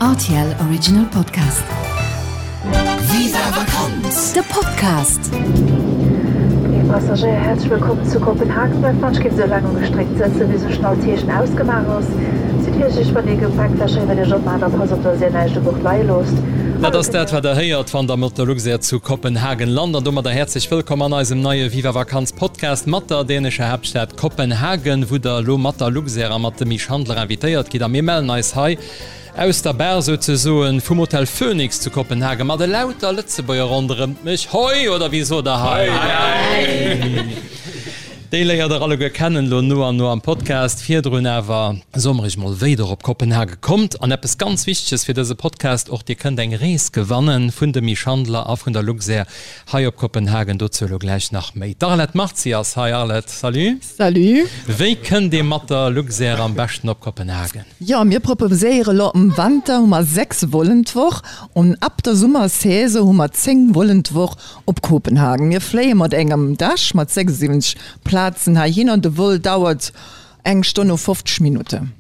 Rtl Original Podcast. Viva Vakanz! De Podcast. Léif Passagéier, häerzlech wëllkomm zu Kopenhagen. Bleift wann sou laang ugestréckt sëtzen, wéi sou schnell d'Heeschen ausgemaach ass. Sidd virsiichteg wann Dir Gepäcktäschen iwwert Iech opmaacht a passt op, dass Dir näischt u Bord leie loosst. Dat ass dat, wat Der héiert, wann Der mat der Luxair zu Kopenhagen lant. An domadder häerzlech wëllkomm an eisem neie Viva Vakanz Podcast mat der dänescher Haaptstad Kopenhagen, wou der elo mat der Luxair a mat dem Misch Handler invitéiert gitt. A mir mellen eis hei aus der Bar souzesoen vum Hotel Phoenix zu Kopenhagen mat elauter Lëtzebuerger ronderëmt mech. Hoi! Oder wéi sot der hei? Hei! Déi léiert der alleguer kennen elo no an no am Podcast. Virdrun awer soe mer iech mol, wéi der op Kopenhage kommt. An eppes ganz Wichteges fir dëse Podcast och, Dir kënnt eng Rees gewanne vun dem Misch Handler a vun der Luxair Hei op Kopenhagen, dozou elo gläich nach méi. D'Arlette Marzi ass hei. Arlette, salut. Salut. Wéi kënnt ee mat der Luxair am beschten op Kopenhagen? Jo, mir proposéiere lo am Wanter hu mer 6 Vollen d'Woch an ab der Summersaison hu mer 10 Vollen d'Woch op Kopenhagen. Mir fléie mat engem Dash mat 76 Plazen heihinner. De Vol dauert Eng Stonn o 50 Minutten.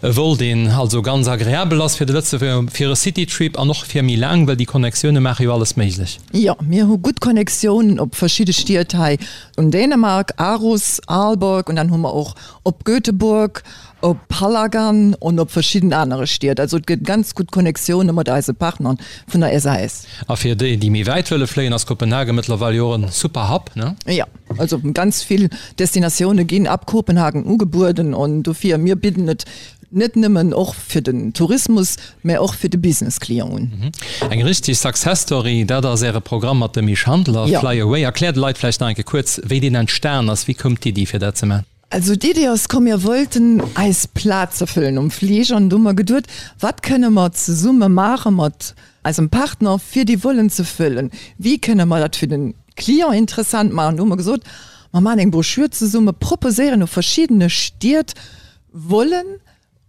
E Vol, deen also ganz agreabel ass fir de Lëtzebuerger, fir e Citytrip an och fir méi laang, well déi Connectioune maache jo alles méiglech. Jo, mir hu gutt Connectiounen op verschidde Stied hei un Dänemark, Aarhus, Aalborg, an dann hu mer och op Göteborg, op Hallagan an op verschidden anere Stied. Also et gëtt ganz gutt Connectioune mat eise Partnern vun der SAS. A fir déi, déi méi wäit wëlle fléien, ass Kopenhagen mëttlerweil jo och en super Hub, ne? Jo. Also ganz vill Destinatioune ginn ab Kopenhagen ugebueden an dofir, mir bidden et net nëmmen och fir den Tourismus, mä och fir de Business-Client un. Eng richteg Success Story, dat ass Äre Programm mat dem Misch Handler, Fly Away. Erkläert de Leit vläicht nach eng Kéier kuerz, wéi deen entstan ass. Wéi koum d'Iddi fir dat ze maachen? Also d'Iddi ass komm, mir wollten eis Plaze fëllen um Fliger an du hu mer geduet, wat kënne mer zesumme maache mat eisem Partner, fir déi Vollen ze fëllen? Wéi kënne mer dat fir de Client interessant maachen? Du hu mer gesot, mer maachen eng Broschür zesumme, proposéieren u verschiddene Stied Vollen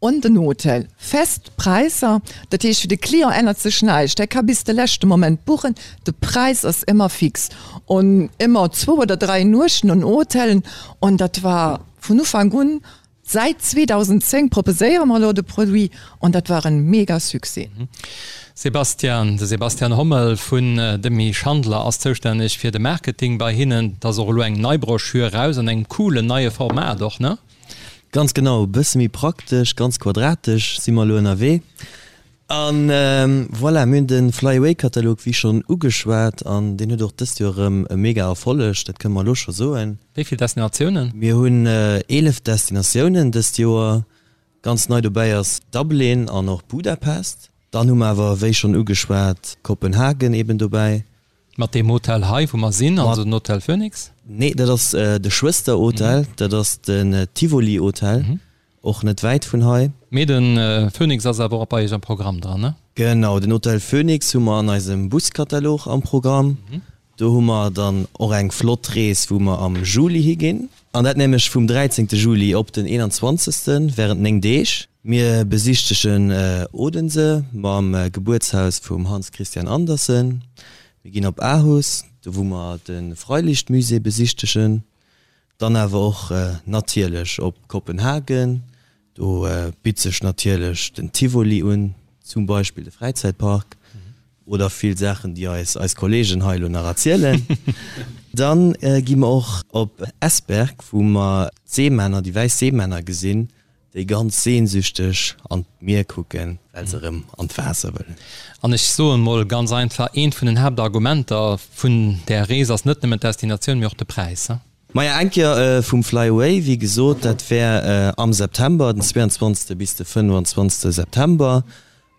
Un den Hotel. Fest Präisser, dat heescht fir de Client ännert sech näischt, hie ka bis de leschte Moment buchen, de Präis ass ëmmer fix. Un ëmmer zwou oder 3 Nuechten un Hotelen an dat war vun Ufank un, säit 2010 proposéiere mer elo de Produit an dat war en mega Succès. Sebastian, De Sebastian Hommel vun Demy Schandler ass zoustänneg fir de Marketing bei hinnen. Et ass och elo eng nei Broschür eraus an engem coolen neie Format och, ne? Ganz genau, e bësse méi praktesch, ganz quadratesch si mer elo ënnerwee. A voilà, mir hunn de Fly Away Katalog wéi schonn ugeschwat an deen huet och dëst Joer erëm e mega Erfolleg, dat kënne mer elo scho soen. Wéi vill Destinatiounen? Mir hunn 11 Destinatiounen dëst Joer. Ganz nei dobäi ass Dublin an och Budapest. Dann hu mer awer, wéi schonn ugeschwat, Kopenhagen eben dobäi. Mat deem Hotel hei, wou mer sinn, also den Hotel Phoenix? Nee, dat ass de Schwësterhotel, dat ass den Tivoli Hotel, och net wäit vun hei. Mee de Phoenix ass awer och bei Iech am Programm dran, ne? Genau, den Hotel Phoenix hu mer an eisem Buskatalog am Programm. Do hu mer dann och eng flott Rees, wou mer am Juli higinn. An dat nämlech vum 13. Juli op den 21. während 9 Deeg. Mir besichtegen Odense mam Gebuertshaus vum Hans Christian Andersen. Mir ginn op Aarhus, do wou mer de Freilichtmusée besichtegen. Dann awer och natierlech op Kopenhagen, do bitt sech natierlech den Tivoli un, zum Beispill de Fräizäitpark oder vill Saachen, déi eis eis Kollegen hei elo nach erzielen. Dann gi mer och op Esbjerg, wou mer d'Seemänner, déi wäiss Seemänner gesinn, déi ganz sehnsüchteg an d'Mier kucken, well se erëm an d'Waasser wëllen. An ech soen mol ganz einfach, eent vun den Haaptargumenter vun där Rees ass net nëmmen d'Destinatioun, mee och de Präis. Maja, eng Kéier vum Fly Away, wéi gesot, dat wär am September, den 22. bis de 25. September,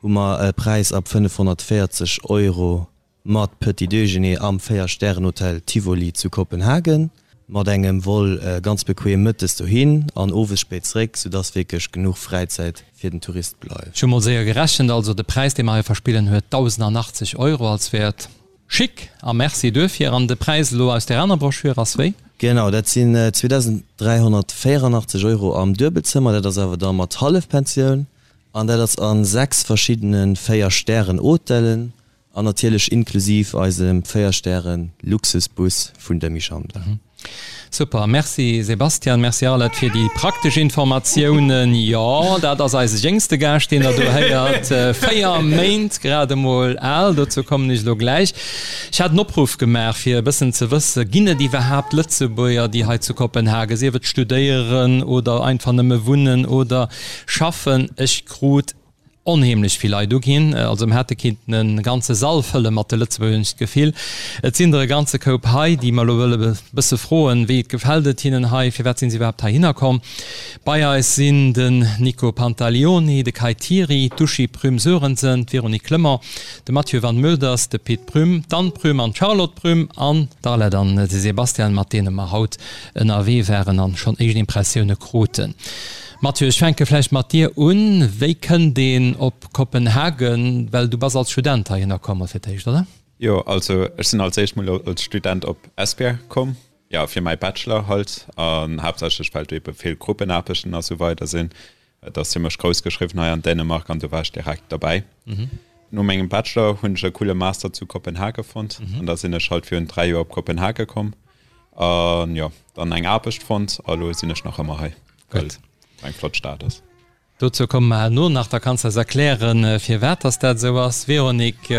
hu mer e Präis ab 540 Euro Mat Petit Déjeuner am 4 Stären Hotel Tivoli zu Kopenhagen, mat engem Vol ganz bequem mëttes dohin an owes spéit zréck, soudass wierklech genuch Fräizäit fir den Tourist bleift. Ech hu mol séier gerechent, also de Präis dee mer hei verspillen huet 1.080 Euro als Wäert. Chic a Merci duerfir. An de Präis elo aus där aner Broschür ass wéi? Genau, dat sinn 2.384 Euro am Duebelzëmmer, dat ass awer da mat Hallefpensioun an dat ass a 6 verschiddene 4 Stären Hotelen. An natierlech inklusiv eisem 4 Stären Luxusbus vun Demy Schandler. Super, merci Sebastian, merci Arlette fir déi praktesch Informatiounen. Jo, dat ass eise jéngste Gaascht, deen der do héiert. 4 Méint grad emol al, dozou kommen ech elo gläich. Ech hat en Opruff gemaach, fir e bëssen ze wëssen, ginn et iwwerhaapt Lëtzebuerger, déi hei zu Kopenhagen, sief et studéieren oder einfach nëmme wunnen oder schaffen. Ech krut onheemlech vill Leit uginn. Also mir hätte kinnten e ganze Sall fëlle mat de Lëtzebuerger, hunn ech d'Gefill. Et sinn der e ganze Koup hei, déi mer elo wëlle e bësse froen, wéi et gefält et hinnen hei, firwat sinn se iwwerhaapt heihinner komm. Bei eis sinn den Nico Pantaleoni, de Kai Thiry, d'Uschi Prüm-Sörensen, d'Véronique Clement, de Mathieu Van Meulders, de Pit Prüm, d'Anne Prüm an d'Charlotte Prüm an d'Arlette an de Sebastian, mat deene mer haut ënnerwee waren an schonn éischt Impressioune kruten. Mathieu, ech fänke vläicht mat dir un. Wéi kënnt een op Kopenhagen? Well du bass als Student heihinner komm fir d'éischt, oder? Jo, also ech sinn als éischt mol als Student op Esbjerg komm, jo fir mäi Bachelor halt, an haaptsächlech well do ebe vill Gruppenaarbechten a sou weider sinn. Et ass zimmlech grouss geschriwwen hei an Dänemark an do war ech direkt derbäi. No mengem Bachelor hunn ech e coole Master zu Kopenhage fonnt an da sinn ech halt virun 3 Joer op Kopenhage komm an jo, dann eng Aarbecht fonnt a lo sinn ech nach ëmmer hei. Well et eng flott Stad ass. Dozou komme mer herno nach, da kanns de eis erklären, firwat dass dat esou ass. Véronique,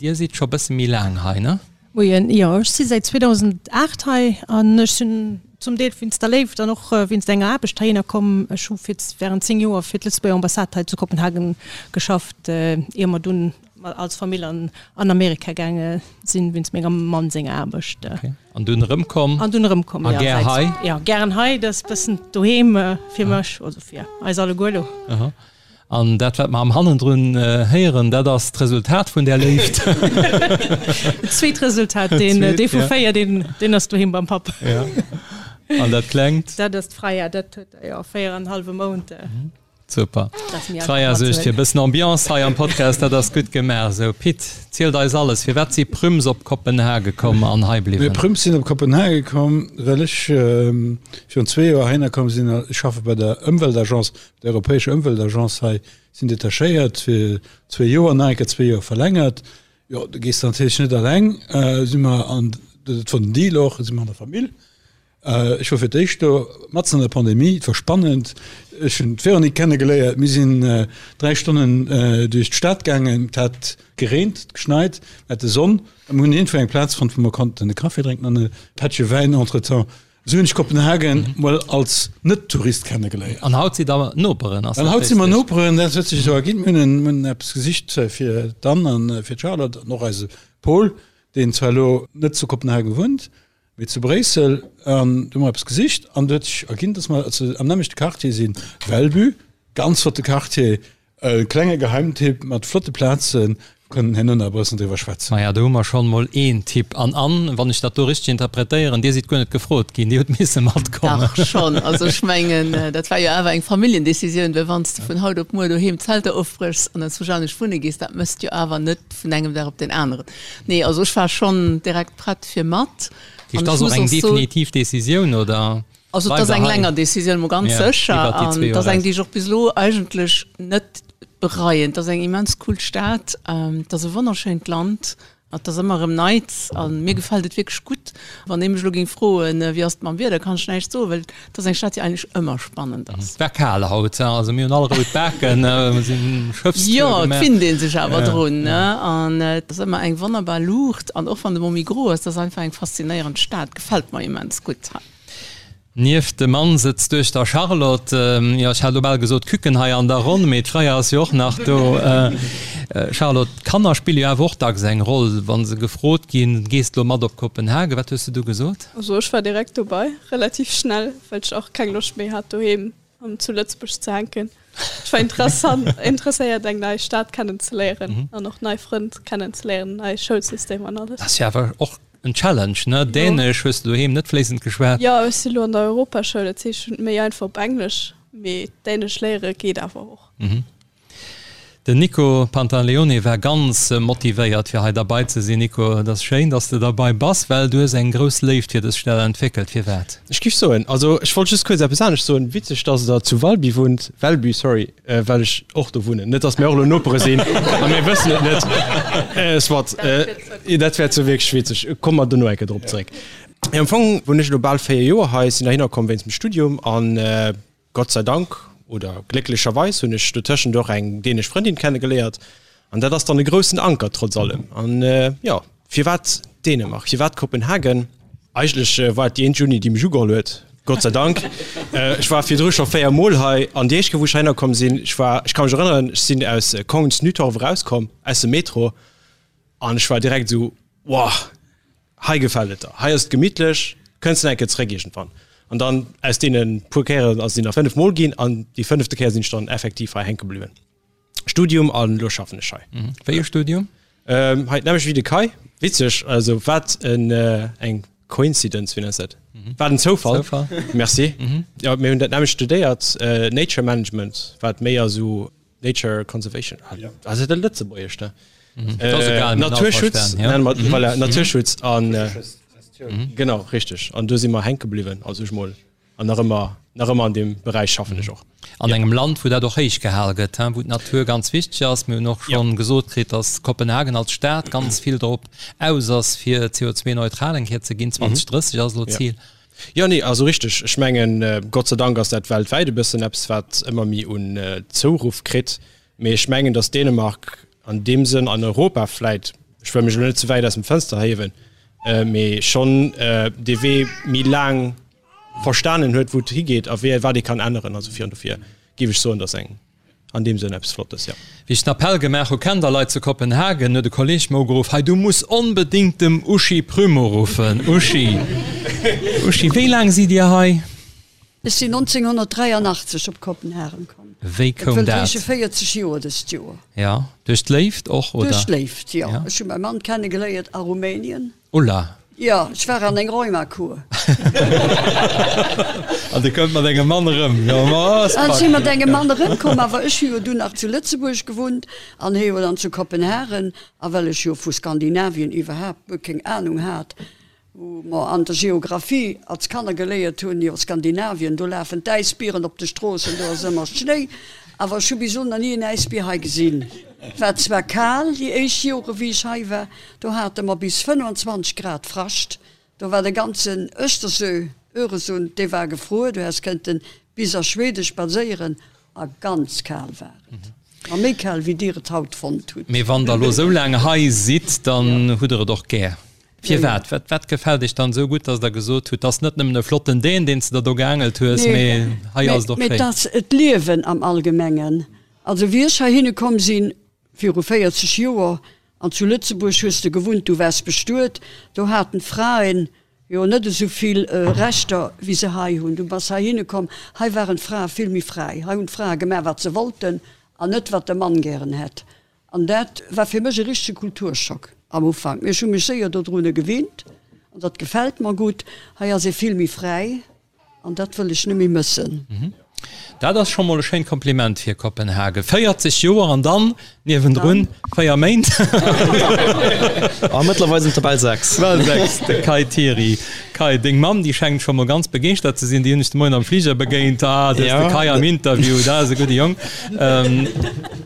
Dir sidd scho bësse méi laang hei, ne? Moien, jo, ech si säit 2008 hei an ech sinn zum Deel wéinst der Léift an och wéinst enger Aarbecht heihinner komm. Ech hu fir während 10 Joer fir d'Lëtzebuerger Ambassade hei zu Kopenhagen geschafft, ier mer dunn als Famill an Amerika gaange sinn, wéinst mengem Mann senger Aarbecht. An dunn erëmkomm? An dunn erëmkomm, jo. A gär hei? Jo, gären hei. Dat ass e bëssen doheem fir mech, also fir eis alleguer elo. Aha. An dat, wat mer am Hannendrun héieren, dat ass d'Resultat vun där Léift? Dat zweet Resultat, deen, dee vu 4, deen, deen ass doheem beim Papp. Ja. An dat Klengt? Dat ass d'Freya, dat huet, jo, 4 an e hallwe Mount. Super. D'Freya suergt fir e bëssen Ambiance hei am Podcast, dat ass gutt gemaach esou. Pit, zielt eis alles, firwat si Prüms op Kopenhage komm an hei bliwwen? Mir Prüms sinn op Kopenhage komm, well ech virun zwee Joer heihinner komm sinn. Ech schaffe bei der Ëmweltagence, der europäescher Ëmweltagence hei, sinn detachéiert fir zwee Joer, nach eng Kéier zwee Joer verlängert. Jo, du gees natierlech net alleng, si mer an, dat war den Deal och, si mer an der Famill. Ech wor fir d'éischt do, matzen an der Pandemie, et wor spannend. Ech hunn d'Véronique kennegeléiert, mir sinn 3 Stonnen duerch d'Stad gaangen, et hat gereent, geschneit, mir hate Sonn a mir hunn iergendwou eng Plaz fonnt, wou mer konnten e Café drénken an e Pättche Wäin entretemps. Esou hunn ech Kopenhagen mol als Net-Tourist kennegeléiert. An haut sidd der Noperen, ass dat richtig? An haut si mer Noperen, dat huet sech esou erginn. Mir hunn eppes gesicht fir d'Anne an fir d'Charlotte an och eise Paul, deen zwar elo net zu Kopenhagen wunnt, Mee zu Bréissel, an do hu mer eppes gesicht an do huet sech erginn, dass mer am nämmlechte Quartier sinn, Valby, ganz flotte Quartier, e klenge Geheimtipp mat flotte Plazen, kënnen herno nach e bëssen driwwer schwätzen. Maja, do hu mer schonn mol een Tipp. An Anne, wann ech dat do richteg interpretéieren, Dir sidd guer net gefrot ginn, Dir hutt misse matkommen. Dach schonn, also ech mengen, dat war jo awer eng Familljendecisioun, well wann s de vun haut op muer doheem d'Zelter ofbréchs an enzwousch anescht wunne gees, dat méchs de jo awer net vun engem Dag op deen aneren. Nee, also ech war schonn direkt prett fir mat. An ech muss och eng definitiv Decisioun oder? Also et ass eng länger Decisioun, mol ganz sécher. An et ass eng, déi ech och bis elo eigentlech net bereien. Et ass eng immens cool Stad, et ass e wonnerschéint Land, et ass ëmmer erëm Neits a mir gefält et wierklech gutt. Wann ee mech elo géing froen, wéi ass et mam Wieder, kann ech näischt soen, well et ass eng Stad, déi eigentlech ëmmer spannend ass. Et war kal haut, also mir hunn all rout Baken, mir sinn Schëffstour Jo, et finnt ee sech awer drun, ne? An et ass ëmmer eng wonnerbar Luucht an och wann de Mont méi gro ass, et ass einfach eng faszinéierend Stad, gefält mer immens gutt hei. Nieft dem Mann sëtzt d'Duechter Charlotte, jo ech hat elo bal gesot Küken hei an der Ronn, mee d'Freya ass jo och nach do. Charlotte, d'Kanner spille jo awer och dacks eng Roll, wa se gefrot ginn, gees de elo mat op Kopenhagen, wat hues de du gesot? Also ech war direkt dobei, relativ schnell, well ech och keng Loscht méi hat doheem zu Lëtzebuerg ze hänken. Ech war interessant, interesséiert eng nei Stad kennenzeléieren an och nei Frënn kennenzeléieren, nei Schoulsystem an alles. Dat ass jo awer och en Challenge, ne? Dänesch hues de doheem net fléissend geschwat. Jo, ech si lo an der Europaschoul, dat heescht ech hunn et méi einfach op Englesch, mee Dänesch léiere geet awer och. Den Nico Pantaleone war ganz motivéiert fir hei derbei ze sinn. Nico, et ass schéin, dass de derbei bass, well du hues eng grouss Léift fir dës Stad entwéckelt. Firwat? Ech giff soen, also ech wollt just kuerz eppes anescht soen, witzeg dass der zu Valby wunnt, Velby, sorry, well ech och do wunnen, net dass mir och elo Nopere sinn a mir wëssen et net, soit, dat wär zwar wierklech witzeg, komme mer dono eng Kéier drop zeréck. Jo, am Fong wunnen ech elo bal 4 Joer hei, sinn heihinner komm wéinst dem Studium an Gott sei Dank oder glécklecherweis hunn ech dotëschent och eng dänesch Frëndin kennegeléiert an dat ass dann e groussen Anker trotz allem. An jo, firwat Dänemark, firwat Kopenhagen? Eigentlech war et déi eenzeg Uni, déi mech ugeholl huet, Gott sei Dank. Ech war virdru scho 4 Mol hei an déi éischt Kéier, wou ech heihinner komm sinn, ech war, ech ka mech erënneren, ech sinn aus Kongens Nytorv erauskomm, aus dem Metro an ech war direkt esou, Wow! Hei gefält et der, hei ass et gemittlech, kënns de nach eng Kéier zeréck iergendwann? An dann aus deene puer Kéieren ass et nach 5 Mol ginn an déi fënnefte Kéier sinn ech dann effektiv hei hänke bliwwen. Studium an elo schaffen ech hei. Wéi e Studium? Hei d'nämmlecht wéi de Kai. Witzeg, also wat en eng Coincidence, wéi nenns de dat? Wat en Zoufall. Zoufall. Merci. Jo, mir hunn dat nämmlecht studéiert, Nature Management, wat méi esou Nature Conservation ass et e Lëtzebuergesch da Naturschutz voilà, Naturschutz an genau richteg an do si mer hänke bliwwen also ech mol an nach ëmmer nach ëmmer an deem Beräich schaffen ech och. An engem Land wou dat och héich gehal gëtt, wou d'Natur ganz wichteg ass. Mir hunn och schonn gesot kritt, datt Kopenhagen als Stad ganz vill drop aus ass fir CO2-neutral eng Kéier ze ginn. 2030 ass elo d'Zil. Jo, nee, also richteg. Ech mengen, Gott sei Dank ass dat weltwäit e bëssen eppes, wat ëmmer méi un Zouruff kritt. Mee ech mengen, datt Dänemark an deem Sënn an Europa vläit, ech wëll mech elo net ze wäit aus dem Fënster hiewen, mee schonn dee Wee méi laang verstanen huet, wou et higeet a wéi wat ee kann änneren. Also fir an dofir géif ech soen, datt eng An deem Sënn eppes Flottes, jo. Wéi ech den Appell gemaach hu, Kennt der Leit zu Kopenhagen, huet e Kolleg mer ugeruff, Hei, du muss onbedéngt dem Uschi Prüm uruffen. Uschi, Uschi, wéi laang sidd Dir hei? Ech sinn 1983 op Kopenhagen komm. Wéi koum dat? Dat wëllt heesche 40 Joer dëst Joer. Jo, duerch d'Léift och, oder? Duerch d'Léift, jo. Ech hu mäi Mann kennegeléiert a Rumänien. Ulla. Jo, ech war an eng Rheumakur. An du kënnt mat engem Mann erëm. Jo, ma ass An ech si mat engem Mann erëmkomm, awer ech hu jo dunn nach zu Lëtzebuerg gewunnt an hie jo dann zu Kopenhagen. A well ech jo vu Skandinavien iwwerhaapt guer keng Anung hat, wou mer an der Geographie als Kanner geléiert hunn, jo Skandinavien, do lafen d'Äisbieren op de Stroossen, do ass ëmmer Schnéi. Awer ech hu bis elo nach ni en Äisbier hei gesinn. War zwar kal déi éischt Jore wéi ech hei war, do hate mer bis 25 Grad Frascht, do war de ganzen Östersö, Öresund, dee war gefruer, du häss kënnten bis a Schwede spadséieren a ganz kal war et, ma méi kal wéi dir et haut fonnt hutt. Mee wann der elo esou laang hei sidd, dann hutt der et och gär. Firwat? Wat, wat gefält iech dann esou gutt, dass der gesot hutt, 't ass net nëmmen e flotten Dän, deen s de der do geaangelt hues, mee hei ass et och schéin? Mee et ass d'Liewen am Allgemengen. Also wéi ech heihinne komm sinn, viru 40 Joer, an zu Lëtzebuerg hues de gewunnt, du waars bestuet, do haten d'Fraen jo net esou vill Rechter wéi se hei hunn. Du bass heihinne komm, hei waren d'Frae vill méi fräi, hei hunn d'Frae gemaach wat se wollten an net wat de Mann gären hätt. An dat war fir mech e richtege Kulturschock am Ufank, mee ech hu mech séier dodrun gewinnt an dat gefält mer gutt. Hei ass ee vill méi fräi. An dat wëll ech net méi mëssen. Dat ass scho mol e schéint Kompliment fir Kopenhagen. 40 Joer an dann niewendrun 4 Méint. A mëttlerweil sinn et der bal 6. Bal 6, de Kai Thiry. Kai, deng Mamm, déi schengt scho mol ganz begeeschtert ze sinn. Déi hunn ech de Moien am Fliger begéint. Ah, do ass de Kai am Interview, dat ass e gudde Jong.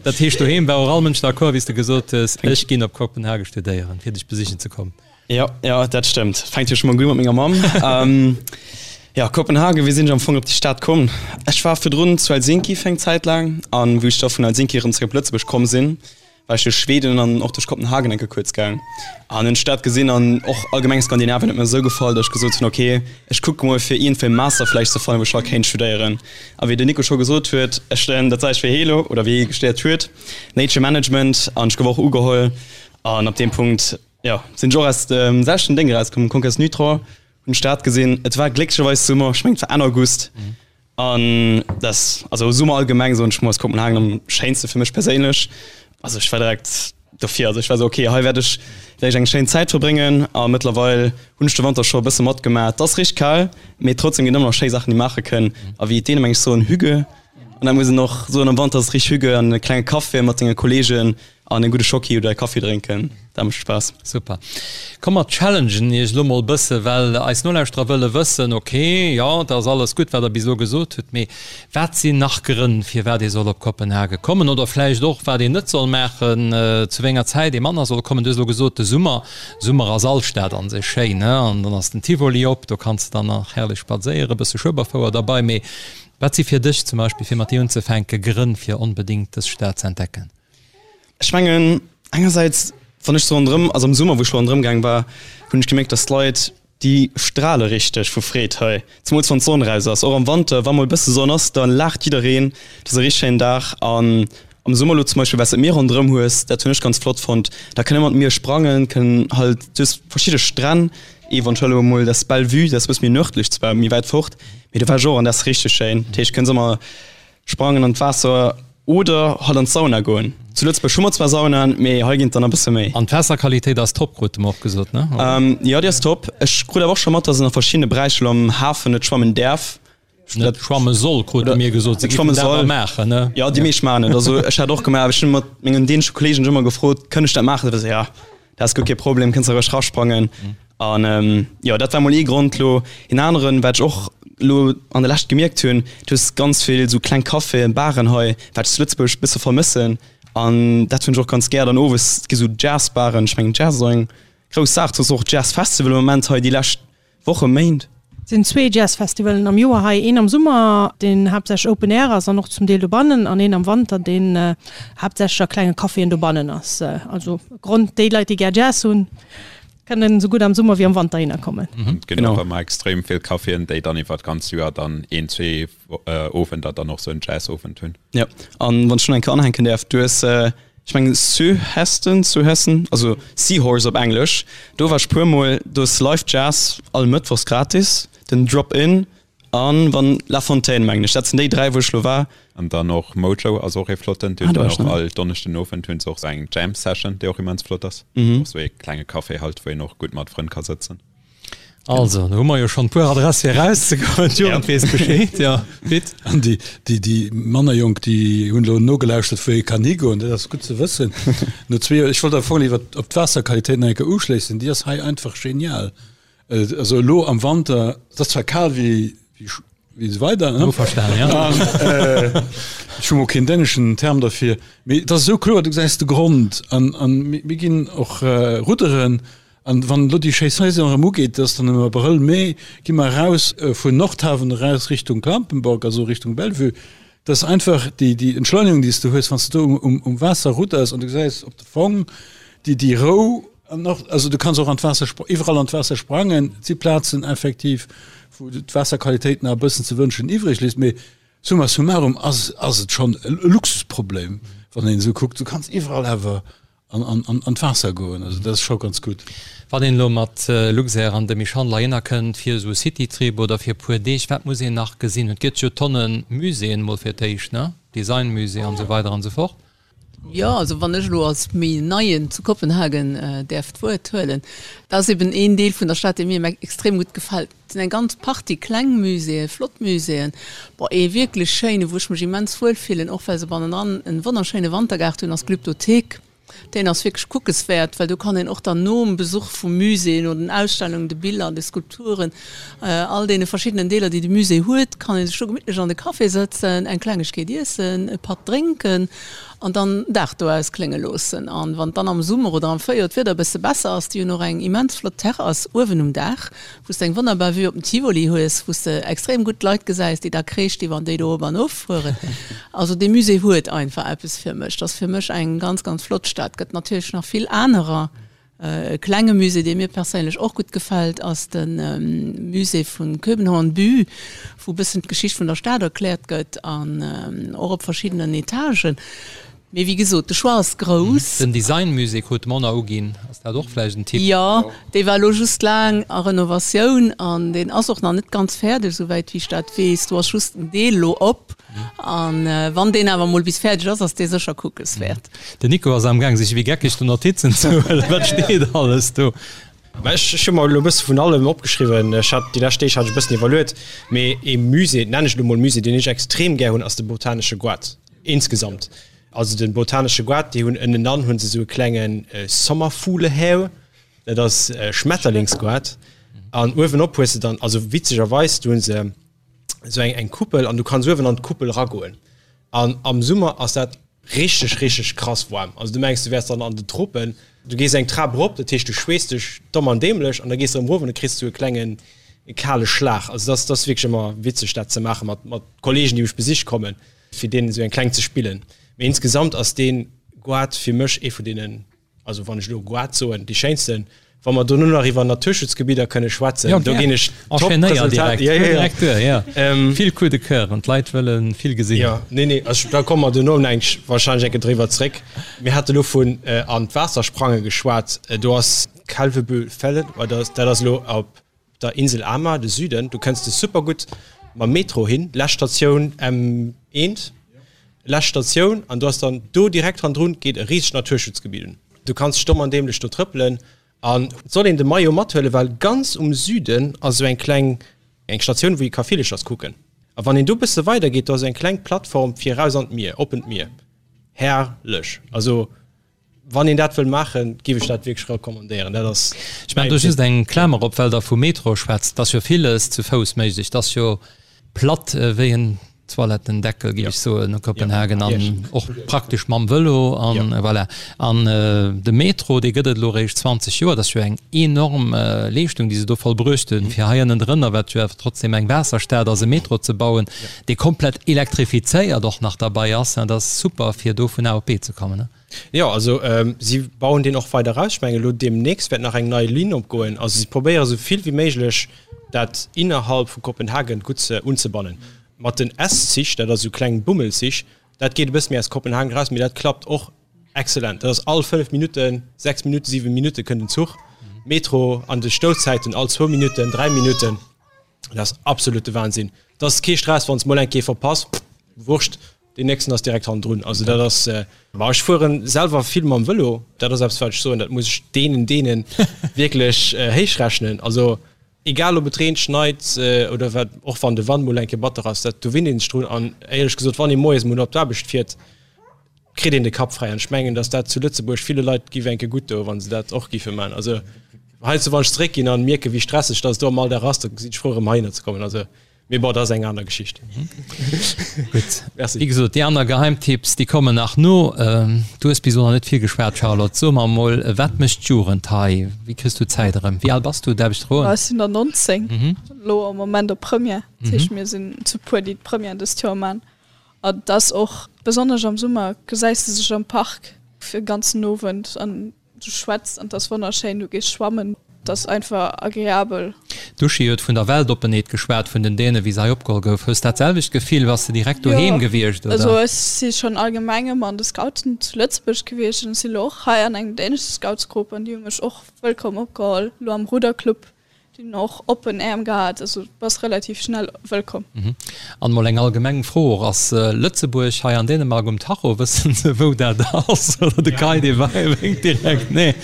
Dat heescht, doheem war och all Mënsch d'accord, wéi s de gesot hues, ech ginn op Kopenhagen studéieren, fir dech besichen ze kommen. Jo, jo, dat stëmmt. Fänkt jo scho mol gutt u mat menger Mamm. Jo, Kopenhagen, wéi sinn ech am Fong op déi Stad komm? Ech war virdrun zu Helsinki fir eng Zäit laang an wou ech da vun Helsinki erëm zeréck op Lëtzebuerg komm sinn, war ech duerch Schweden an och duerch Kopenhagen eng Kéier kuerz gaang an hunn d'Stad gesinn an och allgemeng Skandinavien huet mir esou gefall, datt ech gesot hunn, ok, ech kucke mol fir iergendwéi e Master vläicht ze fannen, wou ech hei kéint studéieren. A wéi den Nico scho gesot huet, ech studéieren dat selwecht wéi hie elo oder wéi hie studéiert huet, Nature Management an ech gouf och ugeholl an ab deem Punkt, Jo, sinn ech och aus dem selwechten Déng erauskomm, Conques Nutro, hunn d'Stad gesinn. Et war glécklecherweis Summer, ech mengen et war Enn August. An dat, also Summer allgemeng soen ech mol, ass Kopenhagen am schéinste fir mech perséinlech. Also ech war direkt dofir, also ech war esou, okay, hei wäert ech wäert ech eng schéin Zäit verbréngen. A mëttlerweil hunn ech de Wanter scho e bësse matgemaach. Et ass richteg kal, mee trotzdem ginn ëmmer nach schéi Saachen, déi maache kënn. A wéi d'Dänen meng ech soen, Hygge. An da muss een och soen, am Wanter ass et richteg Hygge an e klenge Café mat senge Kolleegen. An en gudde Schocki oder e Kaffi drénken, dat mécht Spaass. Super. Komm mer challengen iech elo mol bësse, well eis Nolauschterer wëlle wëssen, ok, jo, dat ass alles gutt, wat der bis elo gesot hutt, mee wat sinn nach Grënn, firwat ee soll op Kopenhage kommen oder vläicht och, wat een net soll maachen, zu wéi enger Zäit ee manner soll kommen? Du hues elo gesot, de Summer. Summer ass all Stad an sech schéin, ne? An dann ass den Tivoli op, do kanns de dann nach herrlech spadséieren, bësse Schueberfouer derbei. Mee wat si fir dech zum Beispill, fir mat dir unzefänken, Grënn, fir onbedéngt dës Stad ze entdecken? Ech mengen engersäits, wann ech sou ronderëm, also am Summer wou ech lo ronderëm gaang war, hunn ech gemierkt, dass d'Leit, déi strale richteg vu Freed hei, zemools wann d'Sonn raus ass. Och am Wanter, wa mol e bësse Sonn ass, da laacht jiddereen, et ass e richteg schéinen Dag. An am Summer lo zum Beispill, well s de d'Mier ronderëm hues, dat hunn ech ganz flott fonnt, da kënn ëmmer d'Mier sprangen, kënn halt, du hues verschidde Stränn, eventuell elo mol dat Bellevue, dat ass e bësse méi nërdlech zwar, méi wäit fort, mee do war ech och an dat ass richteg schéin. Dat heescht, kënns ëmmer Sprangen an d'Waasser oder halt an d'Sauna goen. Zu Lëtzebuerg hu mer zwar Saunaen, mee hei ginn et der nach e bësse méi. An d'Waasserqualitéit ass top, krute mer och gesot, ne? Jo, déi ass top. Ech krut awer och scho mat, dass een a verschiddene Beräicher elo am Hafen net schwammen däerf. Net schwamme soll, krute mir gesot. Se géifen dat awer maachen, ne? Jo, déi meescht maachen et. Also ech hat och gemaach, awer ech hunn mat mengen dänesche Kolleegen ëmmer gefrot, Kënn ech dat maachen? Se war esou, Jo. Dat ass guer kee Problem, kënns roueg rasprangen. An jo, dat war mol ee Grond. Lo een aneren, wat ech och lo an der Lescht gemierkt hunn, du hues ganz vill sou kleng Caféen, Baren hei, wat ech zu Lëtzebuerg e bësse vermëssen. An dat hunn ech och ganz gär. Dann owes, et gi sou Jazzbaren, ech mengen Jazz ass och eng grouss Saach, du hues och Jazzfestival am Moment hei déi lescht Woche, Méint. Et sinn zwee Jazzfestivalen am Joer hei, een am Summer, deen haaptsächlech Open Air ass an och zum Deel dobannen, an een am Wanter, deen haaptsächlech a klenge Caféen dobannen ass. Also Grond, déi Leit, déi gär Jazz hunn, kënnen esou gutt am Summer wéi am Wanter hinner kommen. Et ginn och ëmmer extrem vill Caféen, déi dann iwwer d'ganz Joer dann een, zwee Owender dann och sou en Jazzowend hunn. Jo, an wann ech do nach eng Kéier anhänken däerf, du hues Ech mengen Søhesten, Søhesten, also Seahorse op Englesch. Do war ech puer mol. Do ass Live Jazz all Mëttwochs gratis, den Drop In an wann La Fontaine mengen ech. Dat sinn déi 3 wou ech lo war. An dann och Mojo ass och ee flotten. Déi hunn dann och all Donneschden Owend hunn se och sou eng Jam Session déi och immens flott ass. Och sou ee klenge Café halt wou een och gutt mat Frënn ka sëtzen. Also, do hu mer jo schonn e puer Adresse fir erauszegoen. D'Jugend weess Bescheed, jo. Pit? An déi, déi, déi manner Jonk, déi hunn elo nogelauschtert, wou ee kann higoen. Dat ass gutt ze wëssen. No zwee Joer, ech wollt am Fong iwwer op d'Waasserqualitéit nach eng Kéier uschléissen, déi ass hei einfach genial. Also elo am Wanter, et ass zwar kal wéi, wéi wéi esou weider, ne? Verstan, ja. An, äh, ech hu mol keen däneschen Term derfir, mee et ass esou kloer, du gesäis de Grond an, an mir, mir ginn och äh, rudderen an wann elo déi schéi Saison erëm ugeet, dat ass dann am Abrëll, Mee, gi mer eraus äh, vun Nordhaven eraus Richtung Klampenborg, also Richtung Bellevue. Dat ass einfach déi, déi Entschleunigung, déi s du hues, wann s du do um, um, um Waasser rudders an du gesäis op de Fong déi, déi Rou an och, also du kanns och an d'Waasser, iwwerall an d'Waasser sprangen. Et si Plazen effektiv, wou d'Waasserqualitéit nach e bëssen ze wënschen iwwreg léisst, mee summa summarum ass, ass et schonn e Luxusproblem, wann een esou kuckt. Du kanns iwwerall awer an, an, an, an d'Waasser goen, also dat ass scho ganz gutt. Wann een elo mat Luxair an de Michhandel heihinner kënnt fir esou e Citytrip oder fir e puer Deeg, wat muss een nach gesinn? Et gëtt jo Tonne Muséeën mol fir d'éischt, ne? Designmusée an esou weider an esou fort. Jo, also wann ech elo als méi Neien zu Kopenhagen däerf d'Wuert huelen, dat ass eben een Deel vun der Stad, dee mir extrem gutt gefält. Et sinn eng ganz Partie kleng Muséeën, flott Muséeën, bon, ee wierklech schéinen, wou ech mech immens wuel fillen, och well se bannendran en wonnerschéine Wantergaart hunn, ass d'Glyptothek. Deen ass wierklech kuckeswäert, well do kann een och dann nom Besuch vum Musée, no den Ausstellungen, de Biller, de Skulpturen, all deene verschiddenen Deeler, déi de Musée huet, kann ee sech do gemittlech an de Café sëtzen, eng Klengegkeet iessen, e Patt drénken an dann den Dag do ausklénge loossen. An wann dann am Summer oder am Fréijoer d'Wieder e bësse besser ass, déi hunn och eng immens flott Terrass uewen um Daach, wou s de eng wonnerbar Vue op den Tivoli hues, wou s de extrem gutt d'Leit gesäis, déi da kreesch déi wann déi do op an of fueren. Also dee Musée huet einfach eppes fir mech. Dat ass fir mech eng ganz, ganz flott Stad. Gëtt natierlech nach vill anerer. E klenge Musée, dee mir perséinlech och gutt gefält, ass de Musée vu København By, wou e bëssen d'Geschicht vun der Stad erkläert gëtt an och op verschiddenen Etagen. Mee wéi gesot, de Choix ass grouss. Den Designmusée krut d'Mona uginn, ass dat och vläicht en Tipp? Jo, dee war elo just laang a Renovatioun an deen ass och nach net ganz fäerdeg, esouwäit wéi ech dat weess. Do ass just en Deel elo op an wann deen awer mol bis fäerdeg ass, ass dee sécher kuckeswäert. Den Nico ass amgaang sech wéi geckeg do Notizen ze huelen. Wat steet alles do? Mä ech hu mer elo e bësse vun allem opgeschriwwen. Ech hat déi lescht Deeg hat ech e bëssen iwwerluet, mee ee Musée, nennen ech elo mol Musée, deen ech extrem gär hunn, ass de Botanesche Goart. Insgesamt. Also den botanesche Goart, déi hunn ënnenan hunn se esou e klenge Sommerfuglehäu, dat ass e Schmetterlingsgoart. An uewenop hues de dann, also witzegerweis, do hunn se esou eng eng Kuppel an du kanns uewen an d'Kuppel ragoen. An am Summer ass dat richteg, richteg krass waarm. Also du mengs, du wäers dann an den Tropen. Du gees eng Trap erop, dat heescht du schweesst dech domm an dämlech an da gees de erëm erof an da kriss du e klengen kale Schlag. Also dat ass wierklech ëmmer witzeg dat ze maache mat mat Kollegen, déi mech besiche kommen, fir deenen esou eng kleng ze spillen. Mee insgesamt ass dee Goart fir mech ee vun deenen Also wann ech elo Goart soen, déi schéinsten. Wa mer dono nach iwwer Naturschutzgebidder kënne schwätzen, do ginn ech top Resultat. Ja, ja, ja. Duer, ja. Ähm, vill Coup de cœur an d'Leit wëlle vill gesinn. Ja, nee, nee, also, da komme mer dono eng, wahrscheinlech eng Kéier driwwer zréck. Mir hate lo vun äh, an d'Waasser sprange geschwat. Äh, do ass Kalvebod-Fællet, dat ass elo op der Insel Amager, de Süden, do kënns de super gutt mam Metro hin, lescht Statioun M1, lescht Statioun, an du ass dann do direkt hannendrun geet e risegt Naturschutzgebiet un. Du kanns dech domm an dämlech do trëppelen an et soll een de Maillot mathuelen, well ganz um Süden ass esou eng kleng eng Statioun, wou ee ka Villerchers kucken. A wann een do bësse weider geet, do ass eng kleng Plattform fir eraus an d'Mier, oppent Mier. Herrlech! Also Wann een dat wëll maachen, giff ech dat wierklech recommandéieren. Dat ass Ech maachen do just eng Klamer op, well Der vu Metro schwätzt. Et ass jo villes zu Fouss méiglech. Et ass jo platt wéi en Toilettendeckel, giff ech soen, Kopenhagen, an och praktesch mam Vëlo an voilà. An de Metro, dee gëtt et elo eréischt 20 Joer. Dat ass jo eng enorm Leeschtung, déi se do vollbruecht hunn, fir hei ënnendrënner, wat jo awer trotzdem eng Waasserstad ass, e Metro ze bauen, dee komplett elektrifizéiert och nach derbei ass. Dat ass super, fir do vun A op B ze kommen. Jo, also si bauen deen och weider aus. Ech mengen elo deemnächst wäert nach eng nei Linn opgoen. Also si probéiere sou vill wéi méiglech dat innerhalb vu Kopenhagen gutt ze unzebannen. Mat den S-Zich, dat ass esou kleng Bummelzich, dat geet e bësse méi aus Kopenhagen eraus, mee dat klappt och exzellent. Dat ass all 5 Minutten, 6 Minutten, 7 Minutte kënnt en Zuch. Metro an de Stouzäiten all zwou Minutten, 3 Minutten. Dat ass absolute Wahnsinn. Dat ass kee Stress, wann s mol eng Kéier verpass, wurscht, deen nächsten ass direkt hannendrun. Also dat ass, ma ech fueren selwer vill mam Vëlo, dat ass eppes wat ech soen, dat muss ech deenen deene wierklech héich rechnen. Also egal ob et reent, schneit oder wat, och wann de Wand mol eng Kéier batter ass, dat do winnt een sech drun. An éierlech gesot, wann ee moies mol op d'Aarbecht fiert, kritt een de Kapp fräi. An ech mengen, datt dat zu Lëtzebuerg ville Leit giff eng Kéier gutt doen, wa se dat och giffe man. Also heiansdo wann ech zeréckginn an mierken, wéi stresseg datt et do am Alldag ass, da sinn ech frou erëm heihinner ze kommen. Also mee bon, dat ass eng aner Geschicht. Gutt, Merci. Wéi gesot, déi aner Geheimtipps, déi kommen nach no. Du hues bis elo nach net vill geschwat, Charlotte. So mer emol, wat mécht d'Jugend hei? Wéi kriss du d'Zäit erëm? Wéi al bass du, däerf ech froen? Ech sinn der 19, elo am Moment op Première. Dat heescht, mir sinn zu puer, déi d'Première dëst Joer man. An et ass och, besonnesch am Summer, gesäis de sech am Park fir e ganzen Owend an du schwätz an et ass wonnerschéin, du gees schwammen, et ass einfach agreabel. D'Uschi huet vun der Weltoppenheet geschwat vun den Dänen, wéi se hei opgeholl gouf. Hues dat selwecht Gefill? Bass de direkt doheem gewiescht, oder? Jo, also ech si schonn allgemeng ëmmer an de Scouten zu Lëtzebuerg gewiescht an ech si lo och hei an engem dänesche Scoutsgrupp an déi hu mech och wëllkomm opgeholl, lo am Ruderclub. Déi hunn och oppen Äerm gehat, also du bass relativ schnell wëllkomm. An mol eng allgemeng Fro och, Ass Lëtzebuerg hei an Dänemark um Tacho? Wëssen se wou dat ass? Oder de Kai dee wénkt direkt nee.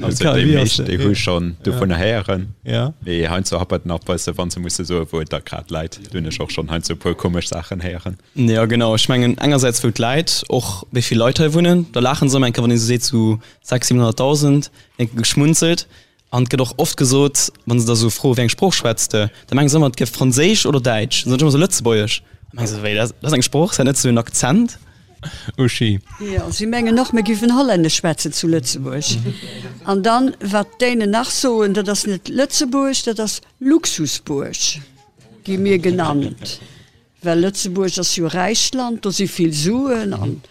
Also déi meescht déi hu schonn dovunner héieren, mee heiansdo happert et nach bësse wann se musse soe wou et da grad läit. Do hunn ech och schonn heiansdo e puer komesch Saachen héieren. Jo genau, ech mengen engersäits wou et läit, och wéi vill Leit hei wunnen, da laachen se ëmmer eng Kéier wann ee sou seet sou 600, 700.000, eng Kéier geschmunzelt. An et gëtt och oft gesot, wann se da sou froen, wéi eng Sprooch schwätz de, da mengen se ëmmer, et gëff Franséisch oder Däitsch. Dann soen ech ëmmer sou Lëtzebuergesch. Da mengen se, wéi, dat ass eng Sprooch, ass dat net sou en Akzent? Uschi. Jo, si mengen och, mir giffen Hollännesch schwätzen zu Lëtzebuerg. An dann, wat d'Dänen nach soen, dat ass net Lëtzebuerg, dat ass Luxusbuerg, gi mir genannt. Well Lëtzebuerg ass jo e räicht Land, do si vill Suen an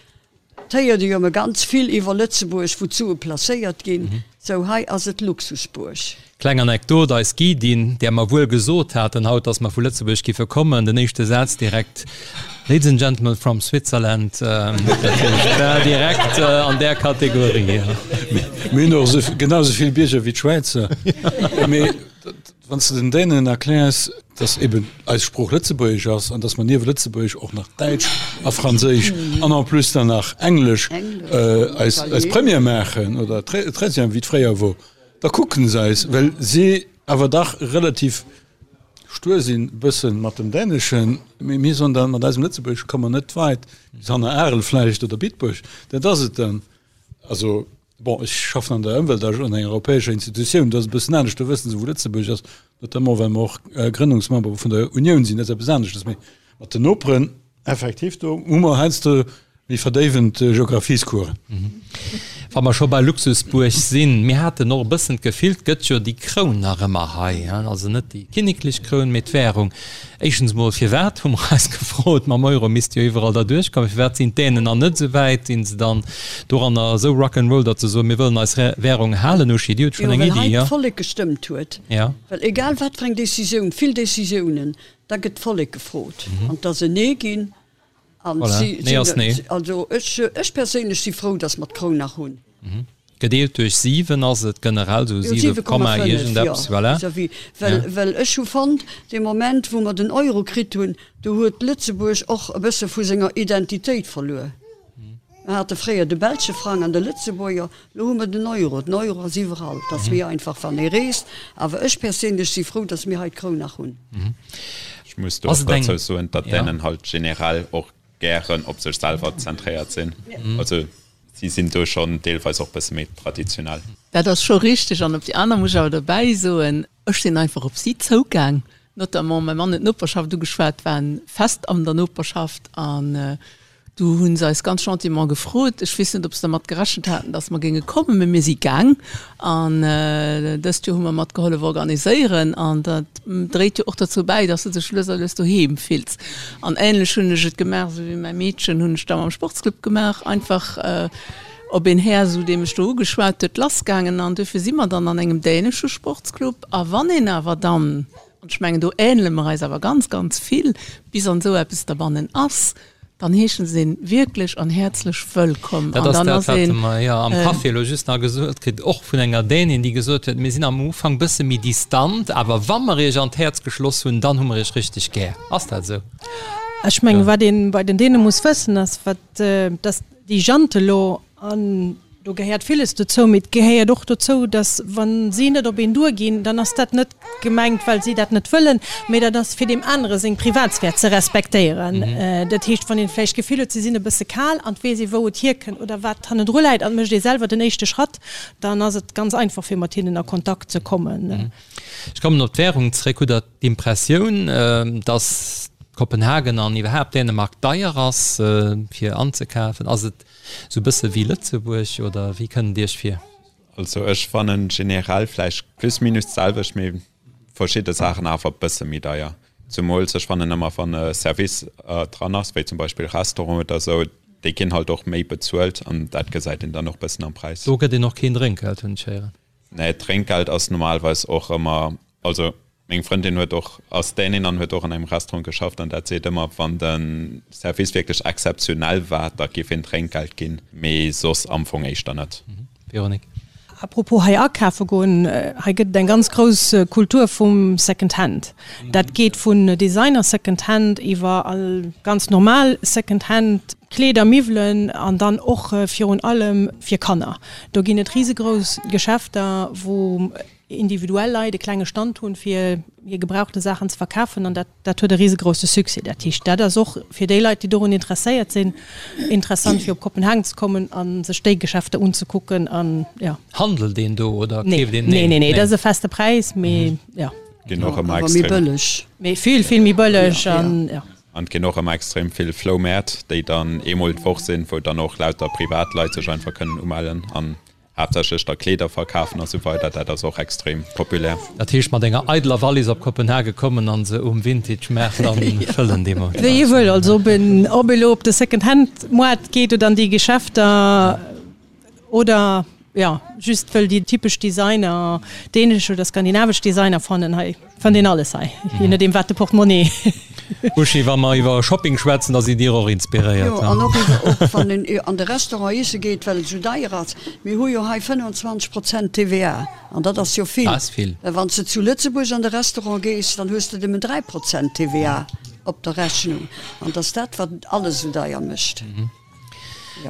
et héiert ee jo ëmmer ganz vill iwwer Lëtzebuerg, wou d'Sue placéiert ginn. Sou hei ass et Luxusbuerg. Kleng Anekdot, Eis Guidin, där mer wuel gesot haten haut, dass mer vu Lëtzebuerg giffe kommen, den éischte Saz direkt, Ladies and gentlemen from Switzerland, dat heescht, war direkt an där Kategorie. Mir hunn och genau esou vill Bierger wéi d'Schwäizer. Mee Wann s de den Dänen erkläers, dass eben eis Sprooch Lëtzebuergesch ass an dass mer niewent Lëtzebuergesch och nach Däitsch a Franséisch an en plus dann nach Englesch eis eis Première maachen oder Treizième, wéi et fréier wor, da kucken se eis, well si awer dach relativ. Stuer sinn e bëssen mat dem Däneschen, mee mir soen dann, mat eisem Lëtzebuergesch komme mer net weit, bis hanner Arel vläicht oder Bitburg, dat ass et dann. Also, bon, ech schaffen an der Ëmweltag an enger europäescher Institutioun, do ass et e bëssen anescht, do wësse se wou Lëtzebuerg ass, notamment well mer och Grënnungsmember vun der Unioun sinn, dat ass eppes aneschtes. Mee mat den Noperen, Effektiv, do hu mer heiansdo méi verdéiwend Geographiescoursen. Wa mer scho bei Luxusbuerg sinn, mir haten och e bëssen d'Gefill, 't gëtt jo déi Kroun nach ëmmer hei, also net déi kinneklech Kroun, mee d'Währung. Éischtens emol, firwat, hu mer eis gefrot, mam Euro misst jo iwwerall derduerch kommen, firwat sinn d'Dänen nach net esou wäit? Sinn se dann doranner esou Rock'n'Roll, datt se soen, mir wëllen eis Währung halen? Uschi, Dir hutt schonn eng Iddi, jo? Well hei d'Vollek gestëmmt huet. Well egal wat fir eng Decisioun, vill Decisiounen, Da gëtt d'Vollek gefrot an et ass en Nee ginn. An Voilà. si Nee ass Nee. Also ech, ech perséinlech si frou, datt mer d'Kroun nach hunn. Gedeelt duerch 7 ass et generell esou 7 Komma 7,5, jo, iergendeppes, voilà. vis-à-vis. Well, Ja. well ech hu fonnt, dee Moment wou mer den Euro kritt hunn, do huet Lëtzebuerg och e bësse vu senger Identitéit verluer. Mer hate fréier de belsche Frang an de Lëtzebuerger, lo hu mer den Euro. Den Euro ass iwwerall, et ass méi einfach wann ee reest. Awer ech perséinlech si frou, datt mir hei d'Kroun nach hunn. Ech muss do och derzou soen, datt d'Dänen halt generell och gären op sech selwer zentréiert sinn. Also si sinn do schonn deelweis och bësse méi traditionell. Dat ass scho richteg. An op déi aner muss ech awer dobäi soen, ech sinn einfach op si zougaang, notamment mäi Mann huet d'Noperschaft ugeschwat, waren fest an der Noperschaft an Du hu se eis ganz gentiment gefrot, ech weess net, ob se dermat gerechent haten, datt mer géinge kommen, mä mir si gaang. An dëst Joer hu mer mat gehollef organiséieren. An dat dréit jo och derzou bäi, datt s de dech lues a lues doheem fills. An änlech hunn ech et gemaach, esou wéi mäi Meedchen, hunn ech da mam Sportsclub gemaach, einfach op een Här, esou dee mech do ugeschwat huet, lassgaangen. An duerfir si mer dann an engem dänesche Sportsclub. A wann een awer dann, an ech mengen, do änele mer eis awer ganz, ganz vill, bis an esou eppes derbannen ass, dann heeschen se een wierklech an häerzlech wëllkomm. Dat ass dat, wat mer jo am Café elo just nach gesot kritt, och vun enger Dänin, déi gesot huet, mir sinn am Ufank bësse méi distant, awer wa mer iech an d'Häerz geschloss hunn, dann hu mer iech richteg gär. Ass dat esou? Ech mengen, wat ee bei den Däne muss wëssen, ass, wat, dass déi Jante lo An do gehéiert villes dozou, mee et gehéiert och dozou, dass, wa si net op een duerginn, dann ass dat net gemengt, well si dat net wëllen, mee dat ass fir deem anere seng Privatsphär ze respektéieren. Dat heescht, wann een vläicht d'Gefill huet, si sinn e bësse kal an et weess ee wou et hierkënnt oder wat hannendru läit an et mécht ee selwer den éischte Schratt, dann ass et ganz einfach fir mat hinnen a Kontakt ze kommen. Ech kommen op d'Währung zréck. Hutt Der d'Impressioun, dass Kopenhagen an iwwerhaapt Dänemark deier ass fir anzekafen? Ass et Sou bësse wéi Lëtzebuerg, oder wéi kënnt et Iech vir? Also ech fannen generell vläicht plus minus d'selwecht, mee verschidde Saachen awer bësse méi deier. Zumools ech fannen ëmmer wann e Service dran ass, wéi zum Beispill Restaurant oder sou, déi ginn halt och méi bezuelt an dat gesäit een dann och bëssen am Präis. Do gëtt een och keen Drénkgeld, hunn ech héieren. Nee, Drénkgeld ass normalerweis och ëmmer, also Meng Frëndin huet och, ass Dänin an huet och an engem Restaurant geschafft an dat seet ëmmer, wann de Service wierklech exzeptionell war, da giff een Drénkgeld ginn, mee soss am Fong éischter net. Véronique. A propos hei akafe goen, hei gëtt et eng ganz grouss Kultur vum Second Hand. Dat geet vun Designer Second Hand iwwer all ganz normal Second Hand Kleeder, Miwwelen an dann och virun allem fir Kanner. Do ginn et risegrouss Geschäfter, wou individuell Leit e klenge Stand hunn, fir hir gebrauchte Saachen ze verkafen an dat dat huet e risegrousse Succès. Dat heescht, dat ass och fir déi Leit, déi dorun interesséiert sinn, interessant fir op Kopenhagen ze kommen a sech déi Geschäfter unzekucken an jo. Handelt een do oder keeft een? Nee, nee, nee, dat ass e feste Präis, mee jo. Ginn och ëmmer extrem. Awer méi bëlleg. Mee vill, vill méi bëlleg an jo. An et ginn och ëmmer extrem vill Floumäert, déi dann eemol d'Woch sinn, wou dann och lauter Privatleit sech einfach kënnen umellen an Haaptsächlech da Kleeder verkafen a sou weider, dat ass och extrem populär. Dat heescht mat enger eideler Wallis op Kopenhage kommen an se um Vintage Maart dann fëllen deemools? Wéi ee wëll, also ob een ob ee lo op de Second Hand Moart geet oder an déi Geschäfter oder jo just wëll déi typesch Designer, dänesch oder skandinavesch Designer fannen. Hei fënnt een alles hei, je nodeem wat de Portemonnaie. Uschi, wa mer iwwer Shopping schwätzen, da sidd Dir och inspiréiert. Jo, an och iwwer, och wann een an de Restaurant iesse geet, well et esou deier ass. Mir hu jo hei 25 Prozent TVA, an dat ass jo vill. Dat ass vill. Well wann s de zu Lëtzebuerg an de Restaurant gees, dann hues de nëmmen 3 Prozent TVA op der Rechnung. An et ass dat, wat alles esou deier mécht.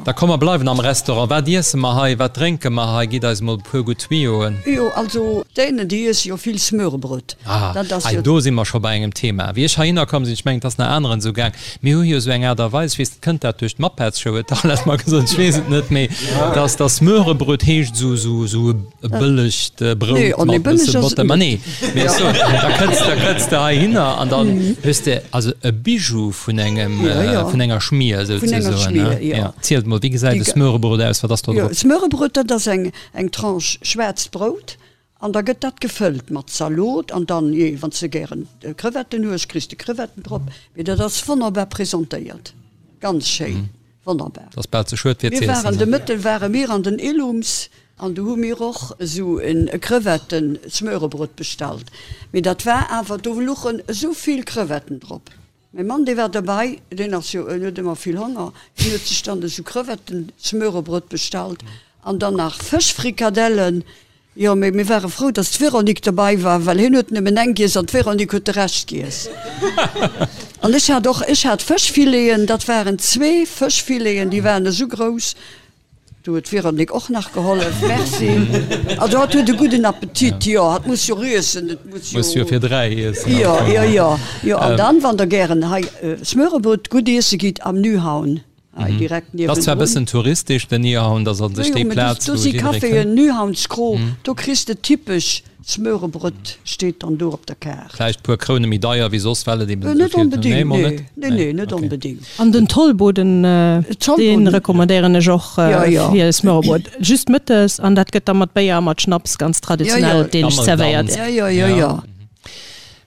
Da komm mer bleiwen am Restaurant. Wat iesse mer hei, wat drénke mer hei? Gitt eis mol e puer gutt Tuyauxen. Jo, also d'Dänen, déi iesse jo vill Smørrebrød. Ah, hei do si mer scho bei engem Thema. Wéi ech heihinner komm sinn, ech mengen, et ass nach aneren esou gaang, mir hu jo esou eng Aart a Weis, ech weess net, kënnt dat duerch d'Muppets-Show, huet d'Arlette mer gesot, ech weess et net, mee dass dass Smørrebrød heescht esou esou esou e bëllegt Brout mat e bësse Botter. Ma nee, mee ech soen, da kënns da kënns de heihinner an dann hues de also e Bijou vun engem vun enger Schmier souzesoen, ne? Jo. Zielt mol, wéi gesäit e Smørrebrød aus, wat ass do drop? Jo, Smørrebrød, dat ass eng eng Tranche schwaarzt Brout An da gëtt dat gefëllt mat Zalot an dann, jee, wann s de gären Crevetten hues, kriss de Crevetten drop. Mee dat ass wonnerbar presentéiert, ganz schéin, wonnerbar. Dat ass bal ze schued fir ze iessen. Mir waren de Mëtten ware mir an den Illums an do hu mir och esou e Crevetten-Smørebrød bestallt. Mee dat war awer, do luchen esou vill Crevetten drop. Mäi Mann, dee war derbei, deen ass jo, en huet ëmmer vill Honger, deen huet sech dann esou Crevetten-Smørebrød bestallt an dann nach Fëschfrikadellen. Jo, mee mir ware frou, dass d'Véronique derbei war, well hien huet nëmmen eng giess an d'Véronique huet de Rescht giess. An ech hat och, ech hat Fëschfileten, dat waren zwee Fëschfileten, déi waren esou grouss, Do huet d'Véronique och nach gehollef, merci. Also hatt huet e gudden Appetit, jo, hatt muss jo iessen, et muss jo. Muss jo fir 3 iessen. Jo, jo, jo, jo. An dann, wann der gären hei Smørrebrød gutt iesse gitt, am Nyhavn, hei direkt niewendrun. Ass zwar e bëssen touristesch, den Nyhavn, dat ass an sech déi Plaz, wou jidderee kënnt. Do si Caféen, Nyhavnskro, do kriss de typesch Smørrebrød, steet dann do op der Kaart. Vläicht puer Kroune méi deier wéi soss, well et eben esou vill. Net onbedéngt, nee, nee, nee, net onbedéngt. An den Tollboden, dee recommandéieren ech och fir Smørrebrød. Just mëttes, an dat gëtt da mat Béier a mat Schnaps ganz traditionell dänesch zerwéiert. Jo, jo, jo.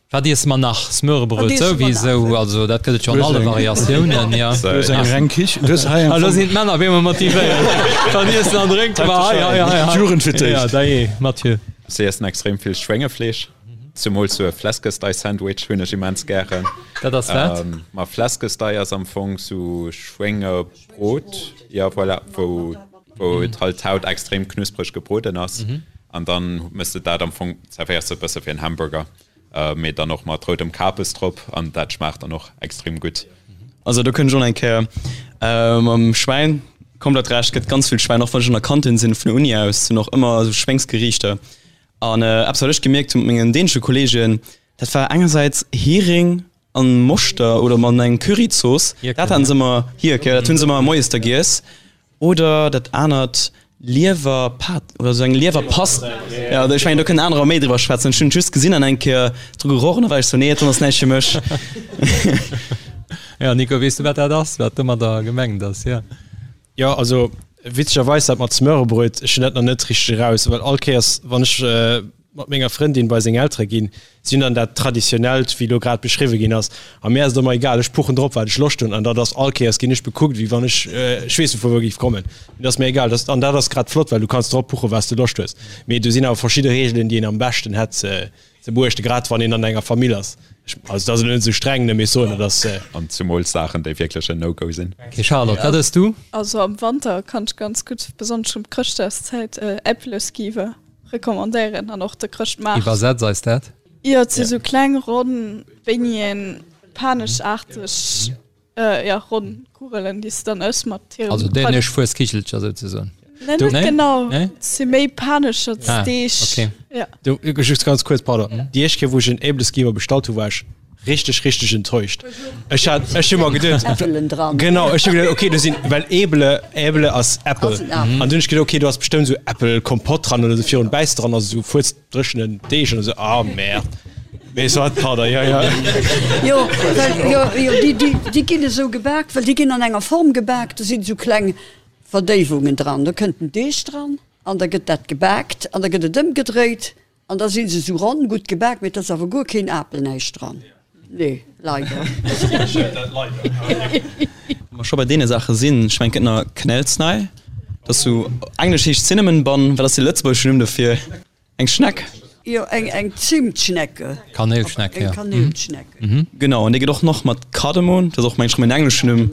Wat iesse mer nach? Smørrebrød souwisou, also dat gëtt et jo an alle Variatiounen, jo. Du hues eng reng Kichen, du hues hei eng. Elo sinn d'Männer op eemol motivéiert. Dann iessen an drénke mer hei, hei, hei, hei. D'Jugend fir d'éischt. Ja, dajee, Mathieu. Si iessen extrem vill Schwéngefleesch, zumools sou e Flæskesteg-Sandwich hunn ech immens gären. Dat ass wat? Ma Flæskesteg ass am Fong sou Schwéngebrot, jo voilà, wou wou et halt d'Haut extrem knuspreg gebroden ass an dann mëss de dat am Fong, zerwéiers de e bësse wéi en Hamburger, mee dann och mat roudem Kapes drop an dat schmaacht dann och extrem gutt. Also do kënnt ech och nach eng Kéier mam Schwäin, komplett Recht, gëtt ganz vill Schwäin, och wann ech an der Kantin sinn vun der Uni aus, sinn och ëmmer esou Schwéngsgeriichter an eppes wat ech gemierkt hu mat mengen dänesche Kollegen, dat war engersäits Hering an Moschter oder mat engem Curryzooss, dat haten se ëmmer, Hierk, jo, dat hunn se ëmmer moies da giess. Oder dat anert, Liewerpat oder esou eng Liewerpast, jo, ech mengen do kënnen anerer méi driwwer schwätzen. Ech hunn et just gesinn an eng Kéier dru geroch an da war ech sou, nee, dat ass näischt fir mech. Jo, Nico, weess du wat dat ass, wat domadder gemengt ass? Jo. Jo, also witzegerweis dat mat Smørrebrød, ech hunn dat nach net richteg eraus, well all Kéiers wann ech mat menger Frëndin bei seng Eltere ginn, si hunn dann dat traditionellt, wéi elo grad beschriwwe ginn ass, a mir ass et ëmmer egal, ech puchen drop, wat ech Loscht hunn, an dat ass all Kéiers ginn ech bekuckt, wéi wann ech, ech weess net vu wou géif kommen, mee dat ass mir egal, dat, an dat ass grad flott, well du kanns drop puchen, wat s de Loscht hues, mee do sinn awer verschidde Reegelen, déi een am beschten hätt ze beuechten, grad wann een an enger Famill ass. Ech, also dat ass elo net esou streng, ne, mee ech soen, et ass. An zumools Saachen, déi wierklech en No-Go sinn. Okay, Charlotte, wat ëss du? Also am Wanter kann ech ganz gutt, besonnesch um Chrëschtdagszäit, Äppleskiver. Recommandéieren an och de Chrëschtmaart. Iwwersetz eis dat. Jo, et si sou kleng ronn Beigneten, panechaarteg, jo, ronn Kugelen, déi s de dann ëss mat hirem. Also dänesch Fueskichelcher souzesoen. Nee, net genau. Et si méi Panechertsdeeg. Ah, okay. Jo. Du, just ganz kuerz, pardon. Déi éischt Kéier, wou ech en Äbleskiver bestallt hu, war ech Richteg richteg enttäuscht. Ech hat ech hu mer geduet Äppelen dran. Genau ech hu geduet okay do sinn well Äble Äble ass Äppel Ass en Apel. an dunn ech geduet okay do ass bestëmmt esou Äppelkompott dran oder sou virun bäiss dran ass esou fuerzdréchenen Deeg an esou ah merde. Mee soit pardon jo jo. Jo well jo jo déi déi déi ginn esou gebak well déi ginn an enger Form gebak do sinn esou kleng Verdéiwungen dran do kënnt den Deeg dran an da gëtt dat gebakt an da gëtt et ëmgedréit An da sinn se sou ronn, gutt gebak, mee et ass awer guer keen Apel, näischt dran. Nee, leider. Wa mer scho bei deene Saache sinn, ech mengen et gëtt nach Knällsnei, dat ass sou, englesch heescht Cinnamon Bun, wat ass de lëtzebuergeschen Numm dofir? Eng Schneck? Jo, eng eng Zimtschnecke. Kanéilschneck, jo. Eng Kanéilschneck. Genau, an déi gëtt och nach mat Kardemon, dat ass och mengen ech rëm en engleschen Numm,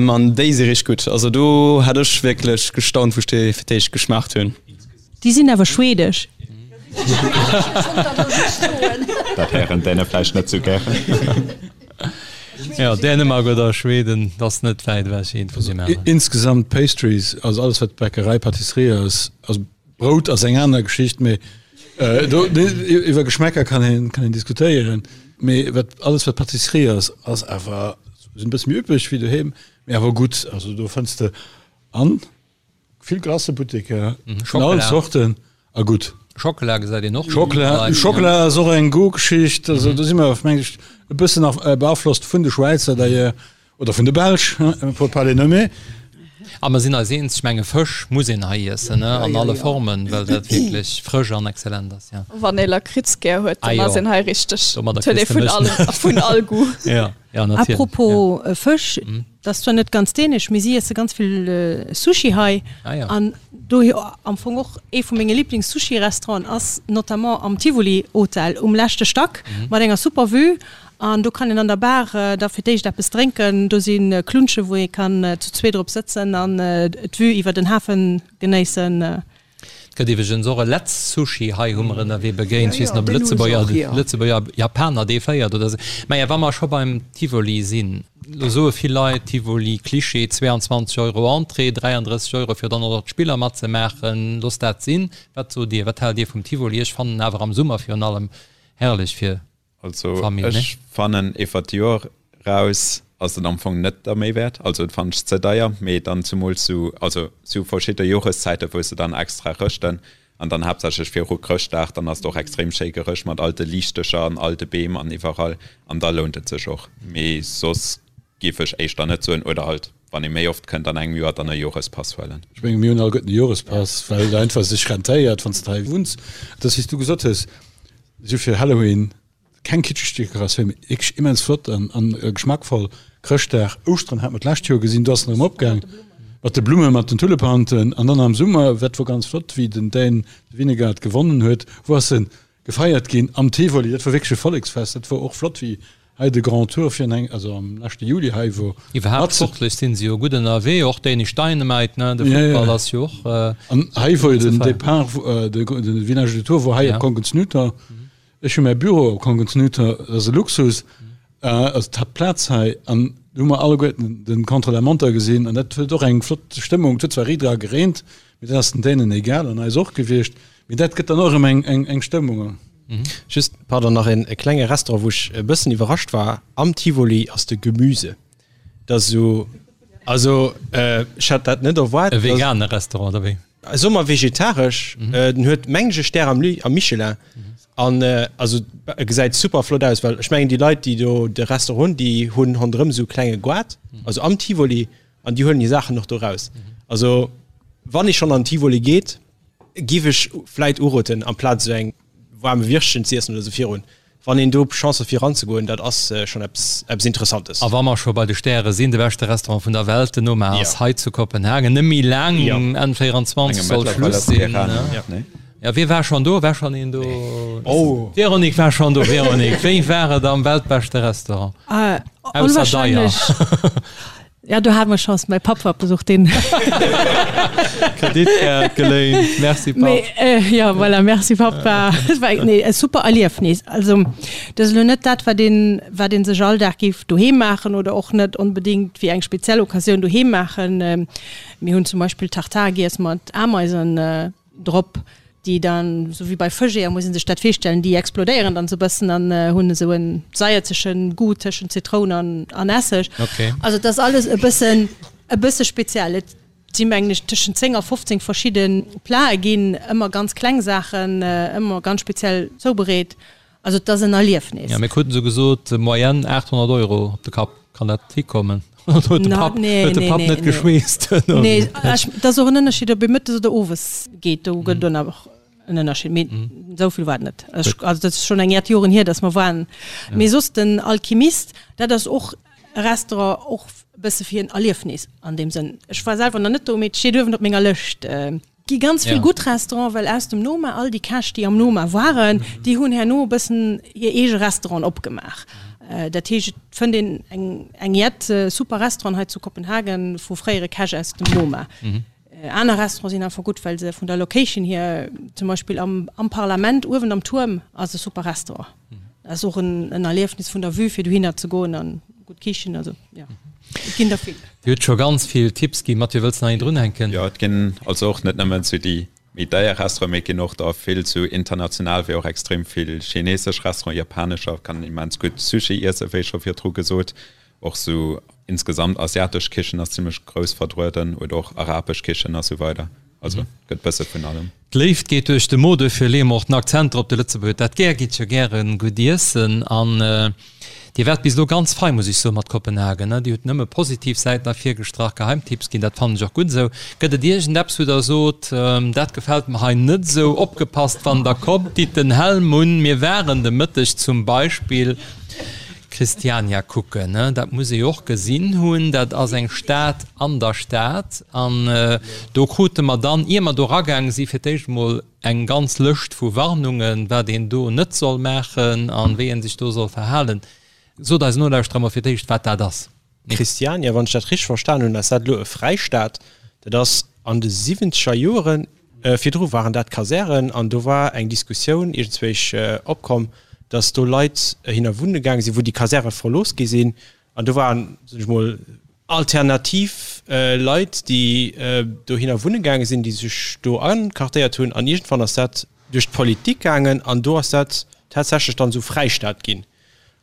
an déi si richteg gutt. Also do hat ech wierklech gestaunt, wou ech déi fir d'éischt geschmaacht hunn. Déi sinn awer schwedesch. Dat héieren d'Däne vläicht net sou gären. Jo, Dänemark oder Schweden, dat ass net wäit ewech eent vun deem aneren. Insgesamt Pastries, also alles wat Bäckerei, Pâtisserie ass, also Brout ass eng aner Geschicht, mee do iwwer Geschmäcker kann een kann een diskutéieren, mee wat alles wat Pâtisserie ass, ass awer sinn e bësse méi üppeg wéi doheem, mee awer gutt. Also do fënns de an vill Glacëbutteker vun allen Zorten a gutt. Schockela gesäit een och. Schockela, Schockela ass och eng Goûtgeschicht. Also do si mer meng ech e bëssen nach beaflosst vun de Schwäizer d'ailleurs oder vun de Belsch, pour pas les nommer. A mer sinn eis eens, ech menge Fësch muss een hei iessen, ne, an alle Formen, well dat wierklech frësch an exzellent ass, jo. Wann ee Lakritz gär huet, dann ass een hei richteg. Domadder kriss de mech. Vun all Goût. Jo. Ja, natierlech. Apropos Fësch, dat ass zwar net ganz dänesch, mee si iesse ganz vill Sushi hei. Ah ja. An dohier am Fong och ee vu menge Liblings-Sushi-Restauranten ass notamment am Tivoli Hotel um leschte Stack mat enger super Vue. An do kann een an der Bar da fir d'éischt eppes drénken. Do si Klunsche wou ee kann zu zweet drop sëtzen an d'Vue iwwer den Hafen genéissen. Et gëtt iwweregens och e Letz Sushi, hei hu mer ënnerwee begéint, ech weess net ob e Lëtzebuerger, Lëtzebuerger Japaner dee féiert oder esou. Maja, wa mer scho beim Tivoli sinn, elo soe vill Leit, Tivoli, Klischee, 22 Euro Entrée, 33 Euro fir dann och nach d'Spiller matzemaachen, loosst dat sinn. Wat sot Dir, wat haalt Dir vum Tivoli? Ech fannen en awer am Summer virun allem herrlech fir Also Famille, ne? ech fannen iwwer d'Joer raus ass et am Fong net der Méi wäert, also et fannen ech ze deier, mee dann zumools zu also zu verschidde Joreszäiten wou se dann extra rëschten an dann haaptsächlech viru Chrëschtdag, dann ass et och extrem schéi gerëscht mat all de Liichtecher an all de Beem an iwwerall an da lount et sech och, mee soss géif ech éischter net soen oder halt wann ee méi oft kënnt an engem Joer dann e Jorespass huelen. Ech menge mir hunn alleguerten e Jorespass, well et einfach sech rentéiert wann s de hei wunns. Et ass wéi s du gesot hues, Si hu fir Halloween keng kitscheg Dekoratioun, mee wierklech immens flott an an geschmackvoll. Chrëschtdag, Ouschteren hat mer d'lescht Joer gesinn, do ass en erëm opgaang mat de Blummen, mat den Tullepanten. An dann am Summer, dat wor ganz flott, wéi den Dän Vingegaard gewonnen huet, wou ass en gefeiert ginn am Tivoli. Dat wor wierklech e Volleksfest. Dat wor och flott, wéi Hei de Grand Tour fir eng, also am leschte Juli hei wor. Iwwerhaapt sportlech sinn se jo gutt ënnerwee, och Danish Dynamite, ne, de Futtball ass jo och. An hei wor jo den Départ, de Village du Tour wor hei op Kongens Nytor. Ech hu mäi Büro op Kongens Nytor, dat ass e Luxus, also d'Haaptplaz hei, an do hu mer alleguerten den Contre-la-montre gesinn an dat huet och eng flott Stëmmung. Et huet zwar riit era gereent, mee dat ass den Dänen egal an eis och gewiescht, mee dat gëtt dann och erëm eng Stëmmung. Just, pardon, nach een e klenge Restaurant, wou ech e bëssen iwwerrascht war am Tivoli, ass de Gemüse. Dat ass esou, also ech hat dat net erwaart. E vegane Restaurant, oder wéi? Soe mer vegetaresch. Den huet, mengen ech, e Stär am am Michelin. An also e gesäit super flott aus, well ech mengen déi Leit, déi do de Restaurant hunn, déi hunn ronderëm esou e klenge Goart, also am Tivoli, an déi huelen hir Saachen och do raus. Also wann ee schonn an den Tivoli geet, Giff ech vläit uroten amplaz esou eng waarme Wirstchen ze iessen oder esou virun, wann een do Chance huet fir eranzegoen, dat ass schonn eppes eppes Interessantes. A wa mer scho bei de Stäre sinn, de beschte Restaurant vun der Welt, den Noma, ass hei zu Kopenhagen. Net méi laang, Enn 24 soll Schluss sinn. Jo, wie war schonn do? War schonn een do? D'Véronique war schonn do. Véronique, wéi war et am weltbeschte Restaurant? Ausser deier. Ja, do hat mer Chance, mäi Papp war op Besuch, deen. Kreditkaart geléint, merci Papp. Mee, ja, voilà, merci Papp, war, war, nee, e super Erliefnis. Also, dat ass elo net dat, wat een, wat een sech all Dag géif doheem maachen oder och net onbedéngt fir eng speziell Occasioun doheem maachen. Mir hunn zum Beispill Tartare giess mat Ameisen. Drop, déi dann, esou wéi bei Fëscheeër muss een sech dat virstellen, déi explodéieren dann esou e bëssen an hunn esou en saierzege Goût tëschent Zitroun an an Esseg. Okay. Also et ass alles e bëssen e bësse speziell. Et si mengen ech tëschent 10 a 15 verschidde Plate ginn, ëmmer ganz kleng Saachen, ëmmer ganz speziell zoubereet. Also et ass en Erliefnis. Ja, mir kruten esou gesot, Moyenne 800 Euro op de Kapp. Kann dat hikommen? Oder huet de Papp, huet de Papp net geschweesst? Nee, et ass och en Ënnerscheed, ob ee mëttes oder owes geet. Do gëtt et och en Ënnerscheed. Mee esou vill war et net. Also dat ass schonn eng Jett Joren hier, datt mer waren. Mee soss den Alchimist, dat ass och e Restaurant, och e bësse fir en Erliefnis an deem Sënn. Ech war selwer nach net do, mee et steet uewen op menger Lëscht. Gi ganz vill gutt Restauranten, well aus dem Noma, all déi Käch, déi am Noma waren, déi hunn herno e bëssen hir eege Restauranten opgemaach. Dat heescht, et fënnt een eng eng jett super Restauranten hei zu Kopenhagen vu fréiere Käch aus dem Noma. Aner Restauranten sinn einfach gutt, well se vun der Location hier, zum Beispill am am Parlament uewen am Tuerm ass e super Restaurant. Dat ass och en en Erliefnis vun der Vue, fir dohinner ze goen an. Gutt Kichen, also jo, et ginn der vill. Dir hutt scho ganz vill Tipps ginn. Mathieu, wëlls de nach een drunhänken? Jo, et ginn also och net nëmmen sou déi méi deier Restauranten, mee et ginn och der vill sou international, wéi och extrem vill chinesesch Restauranten, japanescher, kann immens gutt Sushi iessen, wéi scho virdru gesot. Och sou insgesamt asiatesch Kichen ass zimmlech grouss vertrueden oder och arabesch Kichen a sou weider. Also gëtt bësse vun allem. D'Léift geet duerch de Mo, duerfir leeë mer och den Akzent drop. De Lëtzebuerger huet dat gär, geet jo gäre gutt iessen. An Dir waart bis elo ganz fei, muss ech soen, mat Kopenhagen, ne? Dir hutt nëmme positiv Säiten ervirgestrach, Geheimtipps ginn, dat fannen ech och gutt esou. Gëtt et iergendeppes, wou Der sot, dat gefält mer hei net esou, opgepasst, wann Der kommt, ditt den Helm un, mir waren de Mëtteg zum Beispill Christiania kucken, ne? Dat muss ee jo och gesinn hunn, dat ass eng Stad an der Stad. An do krute mer dann, ier mer do eragaange si fir d'éischt emol eng ganz Lëscht vu Warnungen, wat een do net soll maachen a wéi ee sech do soll verhalen. Sot eisen Nolauschterer emol fir d'éischt, wat dat ass. Christiania, wann ech dat richteg verstan hunn, ass dat elo e Fräistaat. Dat ass an de siwwenzeger Joren, virdru waren dat Kasären an do war eng Diskussioun iergendzwéich opkomm, datt do Leit hinner wunne gaange sinn, wou déi Kasäre verlooss gi sinn. An do waren, soen ech mol, alternativ Leit, déi dohinner wunne gaange sinn, déi sech do anquartéiert hunn. An iergendwann ass dat duerch d'Politik gaangen an do ass dat tatsächlech dann esou Fräistaat ginn.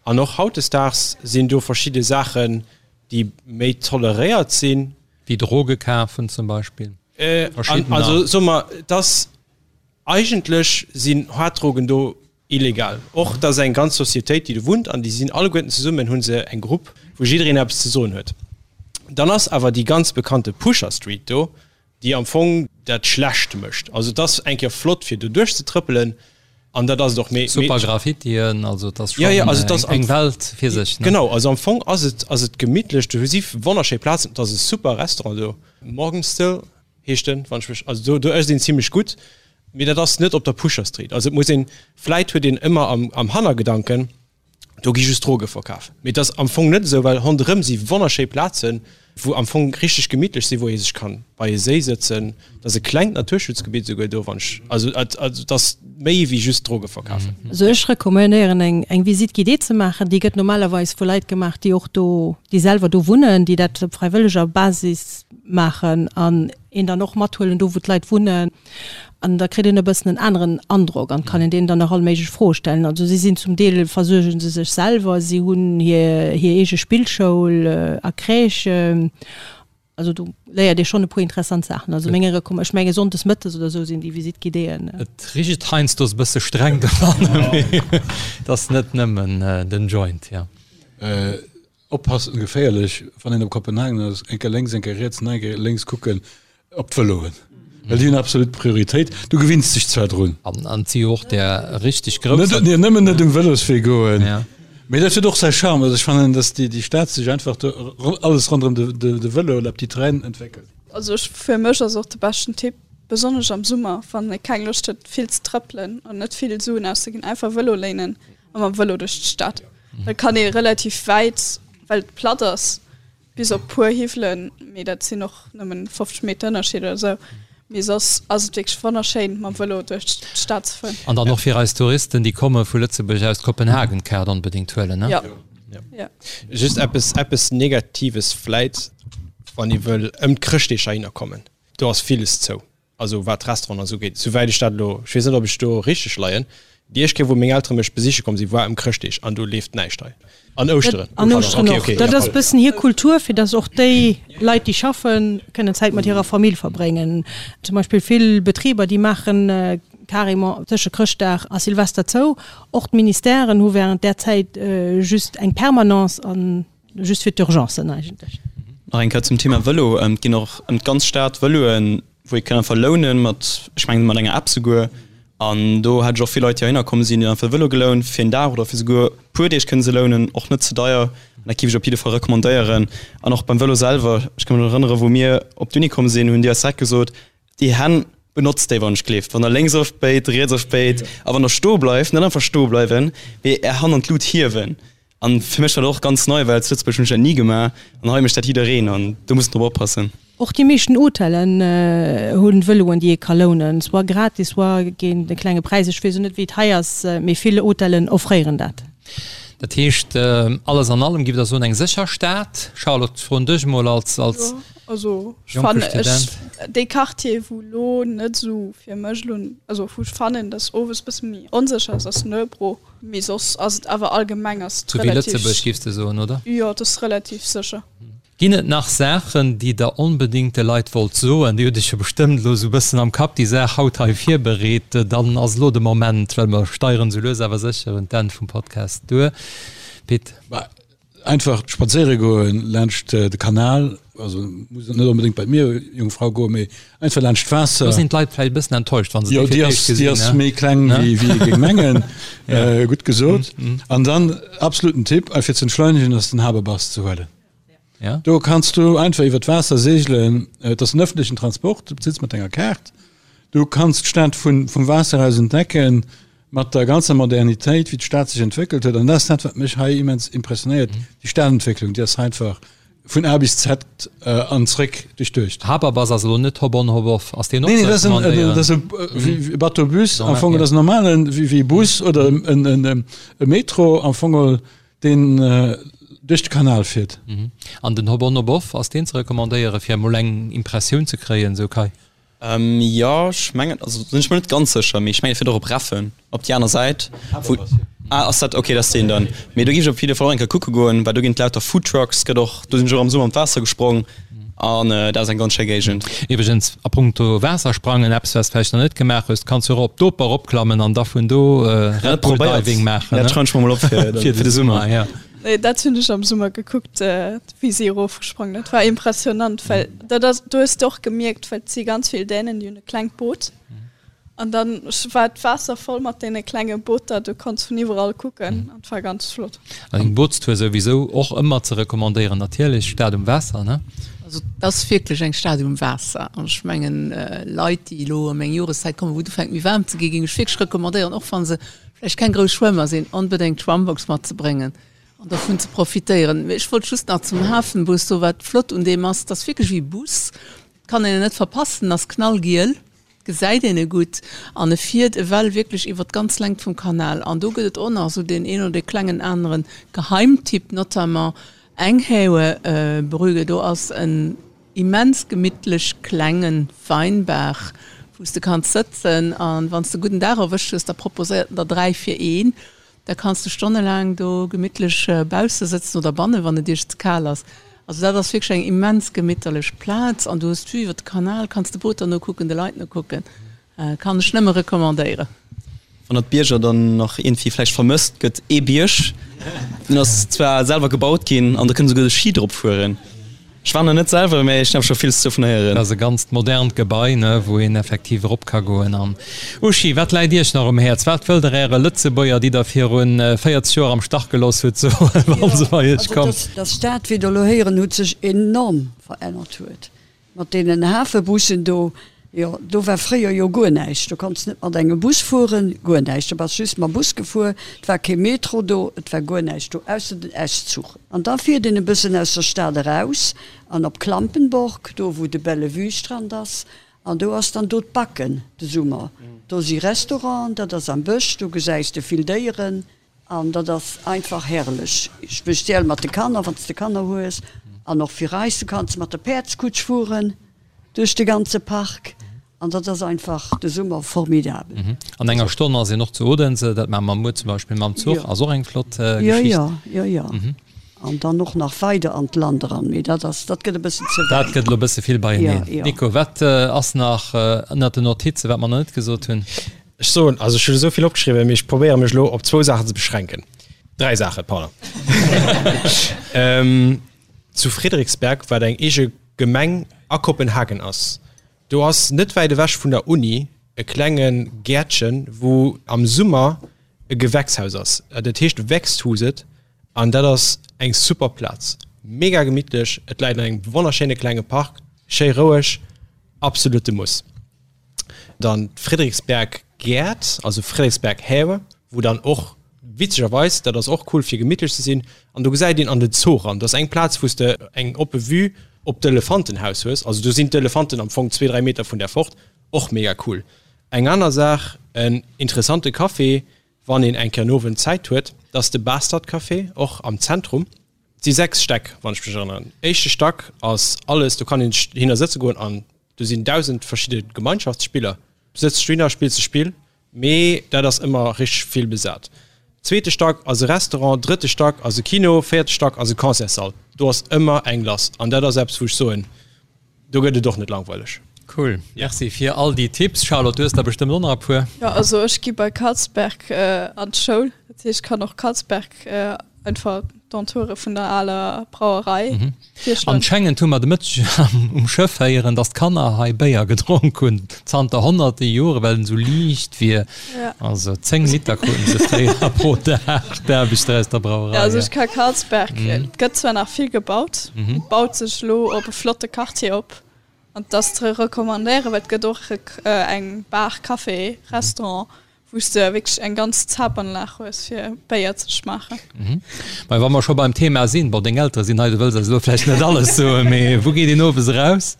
An och hautdesdaags sinn do verschidde Saachen, déi méi toleréiert sinn. Wéi Droge kafen zum Beispill. Also soe mer, dass eigentlech sinn Haarddrogen do illegal. Och et ass eng ganz Societéit, déi do wunnt an déi sinn alleguerten zesummen, hu se eng Grupp, wou jiddereen eppes ze soen huet. Dann ass awer déi ganz bekannte Pusher Street do, déi am Fong dat schlecht mécht. Also et ass eng Kéier flott fir do duerchzetrëppelen an dat ass et och. Mee Super Graffitien, also et ass schonn eng Welt fir sech. Genau, also am Fong ass et ass et gemittlech, do si wonnerschéi Plazen, et ass e super Restaurant do, Morgenstill heescht en, wann ech mech, also do do ësst een zimlech gutt, mee dat ass net op der Pusher Street. Also et muss een, vläit huet een ëmmer am am Hannergedanken, do gi just Droge verkaf, mee et ass am Fong net esou, well ronderëm si wonnerschéi Plazen, wou am Fong richteg gemittlech sinn, wou ee sech kann bei e Séi sëtzen. Et ass e klengt Naturschutzgebitt esouguer do, wann ech, also et also et ass méi wéi just Droge verkafen. Also ech recommandéieren eng eng Visite guidée ze maachen. Déi gëtt normalerweis vu Leit gemaach, déi och do, déi selwer do wunnen, déi dat op fräiwëlleger Basis maachen an een dann och mathuelen do wou d'Leit wunnen an da kritt een e bëssen en aneren Androck an kann een deenen dann och all méiglech Froe stellen. Also si sinn zum Deel versuerge se sech selwer, si hunn hir hir eege Spillschoul a Crèche, also do léiert ee schonn e puer interessant Saachen. Also meng Recomm ech menge sonndes mëttes oder esou sinn déi Visite guidéeën. Et richt heiansdo e bësse streng dobannen, mee et ass net nëmmen den Joint, jo. Oppassen, geféierlech, wann een op Kopenhagen ass, eng Kéier lénks, eng Kéier riets, nach eng Kéier lénks kucken op d'Vëloen, well déi hunn absolut Prioritéit. Du gewinns dech zwar drun. An et si jo och där richteg grousser. Net, nëmmen net um Vëloswee goen. Mee dat huet och säi Charme. Also ech fannen, datt déi Stad sech einfach do alles ronderëm de Vëlo, la petite reine, entwéckelt. Also ech, fir mech ass och de beschten Tipp, besonnesch am Summer, wann ee keng Loscht huet vill ze trëppelen an net vill Suen auszeginn, einfach Vëlo léinen a mam Vëlo duerch d'Stad. Da kann ee relativ wäit, well et platt ass, bis op puer Hiwwelen, mee dat sinn och nëmmen 50 Meter Ënnerscheed oder esou. Mee soss ass et wierklech wonnerschéin, mam Vëlo duerch d'Stad ze fueren. An dann och fir eis Touristen, déi komme vu Lëtzebuerg aus, d'Kopenhagen-Kaart onbedéngt huelen, ne? Jo. Jo. Just eppes, eppes Negatives vläit, wann ee wëll ëm d'Chrëschtdeeg heihinner kommen, do ass villes zou. Also wat d'Restauranten an esou ugeet, souwäit ech dat elo, ech weess net ob ech do richteg leien, déi éischt Kéier wou meng Eltere mech besiche komm sinn, war ëm Chrëschtdeeg an do leeft näischt hei. An Ouschteren. An Ouschteren och. Dat ass e bëssen hir Kultur, fir datt och déi Leit déi schaffen, kënnen Zäit mat hirer Famill verbréngen. Zum Beispill vill Betriber, déi maachen carrément tësche Chrëschtdag a Silvester zou. Och d'Ministèren hu wärend där Zäit just eng Permanence an Just fir d'Urgencen eigentlech. Nach eng Kéier zum Thema Vëlo, Et ginn och ëm d'ganz Stad Vëloen, wou ee kann einfach lounen, mat, ech mengen mat enger App souguer. An do hat ech och vill Leit, déi heihinner komm sinn, déi hunn einfach e Vëlo gelount fir een Dag oder fir souguer e puer Deeg kënne se lounen, och net ze deier. An dat géif ech op jidde Fall recommandéieren. An och beim Vëlo selwer, ech ka mech nach erënneren, wou mir op d'Uni komm sinn, hunn déi eis direkt gesot, Déi Hänn benotzt déi wann ech gleeft. Wann der lénks ofbéit, riets ofbéit a wann der stoe bleift, net einfach stoe bleiwen, mee är Hand an d'Lut hiewen. An fir mech war dat och ganz nei, well zu Lëtzebuerg hunn ech dat ni gemaach an hei mécht dat jiddereen an do muss een drop oppassen. Och déi meeschten Hotellen hunn Vëloen déi ee ka lounen, soit gratis, soit géint e klenge Präis. Ech weess och net wéi et hei ass, mee vill Hotellen offréieren dat. Dat heescht, alles an allem, giff Der soen, eng sécher Stad? Charlotte, froen dech emol als als Jo, also ech jonke fannen, ech, Student. dee Quartier wou lo net esou fir mech lo, also wou ech fannen, dass owes bësse méi onsécher ass, ass Nørrebro. Mee soss ass et awer allgemeng ass et Sou wéi relativ, Lëtzebuerg, giffs de soen, oder? jo, et ass relativ sécher. Ginn et nach Saachen, déi Der onbedéngt de Leit wollt soen? Dir hutt Iech jo bestëmmt elo esou e bëssen am Kapp déi Saach haut hei virbereet. Dann ass elo de Moment, well mer steieren esou lues awer sécher un d'Enn vum Podcast duer. Pit. Bah, einfach spadséiere goen laanscht de Kanal, also muss net onbedéngt bei d'Mierjungfrau goen, mee einfach laanscht d'Waasser. Do sinn d'Leit vläicht e bëssen enttäuscht, wa se déi fir Jo, d'éischt déi gesinn, ass méi kleng, wéi ee géing mengen. Gutt gesot. An dann absoluten Tipp, fir ze entschleunegen, ass den Haberbus ze huelen. Ja. Do kanns du einfach iwwer d'Waasser segelen. Et ass en ëffentlechen Transport, du bezills mat denger Kaart. Du kanns d'Stad vun, vum Waasser aus entdecken, mat der ganzer Modernitéit, wéi d'Stad sech entwéckelt huet. An dat ass dat, wat mech hei immens impressionéiert, déi Stadentwécklung, déi ass einfach vun A bis Z an zréck duerchduecht. Haberbus ass elo net Hop-on, Hop-off. Ass deen och Nee, ze nee, dat ass en, recommandéieren? dat ass e Bateau-Bus, am Fong, dat ass en normalen, wéi, wéi e Bus oder en, en, e Metro am Fong. Deen duerch de Kanal fiert. An den Hop-on Hop-off, ass deen ze recommandéieren, fir emol eng Impressioun ze kréien, sou Kai? Jo, ech mengen, also sinn ech mer net ganz sécher, mee ech mengen e fiert och op Reffen, op déi aner Säit. Wou, ah, ass dat, okay, dat ass deen dann. Mee do géif ech op jidde Fall och eng Kéier kucke goen, well do ginn et lauter Foodtrucks, gëtt och, do sinn ech och am Summer an d'Waasser gesprong an dat ass eng ganz schéi Géigend. Iwwregens, a punkto Waassersprangen, eppes wat s de vläicht nach net gemaach hues, du kanns jo och op d'Oper eropklammen an da vun do Red Bull Diving maachen. Dat schreiwen ech mer mol op fir de Summer. Ja. Nee, dat hunn ech am Summer gekuckt, wéi si erofgesprongen. Dat war impressionant, well dat ass, do hues de och gemierkt, well et si ganz vill Dänen, déi hunn e klengt Boot. An dann war d'Waasser voll mat deene klenge Booter, du konns vun iwwerall kucken an et war ganz flott. An eng Bootstour souwisou och ëmmer ze recommandéieren natierlech, Stad um Waasser, ne? Also et ass wierklech eng Stad um Waasser an ech mengen Leit déi elo ëm eng Joreszäit kommen, wou et ufänkt méi waarm ze ginn, géing ech wierklech recommandéieren, och wa se vläicht keng grouss Schwëmmer sinn, onbedéngt d'Schwammbox matzebréngen an dovun ze profitéieren. Mee ech wollt just nach zum Hafenbus soen, wat flott un deem ass, et ass wierklech wéi e Bus, et kann een en net verpassen, en ass knallgiel. Gesäit een e gutt an e fiert ewell wierklech iwwer d'ganz Längt vum Kanal. An do gëtt et och nach esou deen een oder dee klengen anere Geheimtipp, notamment Enghave Brygge. Do ass en immens gemittlech klenge Weinbar, wou s de kanns sëtzen an wann s de e gudden Dag erwëscht hues, da proposéiert en der 3 fir een. Da kanns de stonnelaang do gemittlech bausse sëtzen oder bannen, wann et iech ze kal ass. Also dat ass wierklech eng immens gemitterlech Plaz an du hues d'Vue iwwer de Kanal, kanns de Booter nokucken, de Leit nokucken. Kann ech nëmme recommandéieren. Wann der d'Bierger dann nach iergendwéi vläicht vermësst, gëtt ee Bierg, deen ass zwar selwer gebaut ginn an do kënnt esouguer de Ski drop fueren. Ech war nach net selwer, mä ech hunn awer scho villes dovun héieren. Dat ass e ganzt modernt Gebai, ne, wou een effektiv erop ka goen. An Uschi, wat läit Iech nach um Häerz? Wat wëllt Der Äre Lëtzebuerger, déi Der virun 40 Joer am Stach gelooss hutt, soen, wa se bei Iech kommen? Also, dass d'Stad, wéi Der elo héieren hutt, sech enorm verännert huet. Mat deenen Hafebussen do, jo, do war fréier jo guer näischt. Do konns net mat engem Bus fueren, guer näischt. Do bass just mam Bus gefuer. Et war kee Metro do, et war guer näischt do, ausser den S-Zuch. An da fiert een e bëssen aus der Stad eraus an op Klampenborg, do wou de Bellevue-Strand ass. An do ass dann do d'Backen de Summer. Do si Restauranten, dat ass am Bësch, do gesäis de vill Déieren. An dat ass einfach herrlech, speziell mat de Kanner, wann s de Kanner hues. An och fir eis, du kanns mat der Päerdskutsch fueren duerch de ganze Park. An dat ass einfach de Summer formidabel. An enger Stonn ass een och zu Odense, dat maache mer muer zum Beispill mam Zuch, ass och eng flott Geschicht. Jo, jo, jo, jo. An dann och nach weider an d'Land eran, mee dat ass, dat gëtt e bëssen ze wäit. Dat gëtt elo e bësse vill beieneen. Nico, wat ass nach ënnert den Notizen, wat mer nach net gesot hunn? Ech soen, also ech hunn esou vill opgeschriwwen, mee ech probéiere mech elo op zwou Saachen ze beschränken. Dräi Saachen, pardon. Zu Frederiksberg, wat eng eege Gemeng a Kopenhagen ass, do ass net wäit ewech vun der Uni e klenge Gäertchen, wou am Summer e Gewächshaus ass. Dat heescht Växthuset an dat ass eng super Plaz. Mega gemittlech, et läit an engem wonnerschéine klenge Park, schéi roueg, absolute Muss. Dann d'Frederiksberg Gäert, also Frederiksberg Have, wou dann och witzegerweis, dat ass och cool fir gemittlech ze sinn, an do gesäit een an den Zoo ran. Dat ass eng Plaz wou s de eng oppe Vue op d'Elefantenhaus hues, also do sinn d'Elefanten am Fong zwee, dräi Meter vun där fort, och mega cool. Eng aner Saach, en interessante Café. Wann een eng Kéier en Owend Zäit huet, dat ass de Bastard Café, och am Zentrum. Et si 6 Stäck, wann ech mech erënneren. Éischte Stack ass alles, do kann een sech hinner sëtze goen an do sinn 1.000 verschidde Gemeinschaftsspiller. Du sëtz dohinner, spills e Spill, mee dat ass ëmmer richteg vill besat. Zweete Stack ass e Restaurant, drëtte Stack ass e Kino, véierte Stack ass e Concertssall. Do ass ëmmer eng lass an dat ass eppes, wou ech soen, Do gëtt et och net langweileg. Cool, merci fir all déi Tipps. Charlotte, du hues der bestëmmt och nach e puer. Jo, also ech gi bei Carlsberg an d'Schoul, dat heescht ech kann och Carlsberg einfach d'Entoure vun der aler Brauerei virschloen. Anschengend hu mer de Mëtteg um Schëff héieren, dass d'Kanner hei Béier gedronk hunn zanter honnerte Jore, well en esou liicht wier. Also 10 Liter kruten se fréier pro Dag, d'Aarbechter aus der Brauerei. Ja, also ech ka Carlsberg, et gëtt zwar nach vill gebaut, et baut sech elo op e flotte Quartier op an et ass ze recommandéieren, well et gëtt och eng Bar, Café, Restaurant, wou s de wierklech eng ganz Zapanlag hues fir Béier ze schmaachen. Mä wa mer scho beim Thema sinn, bon deng Eltere sinn hei, du wëlls eis elo vläicht net alles soen, mee wou geet een owes eraus?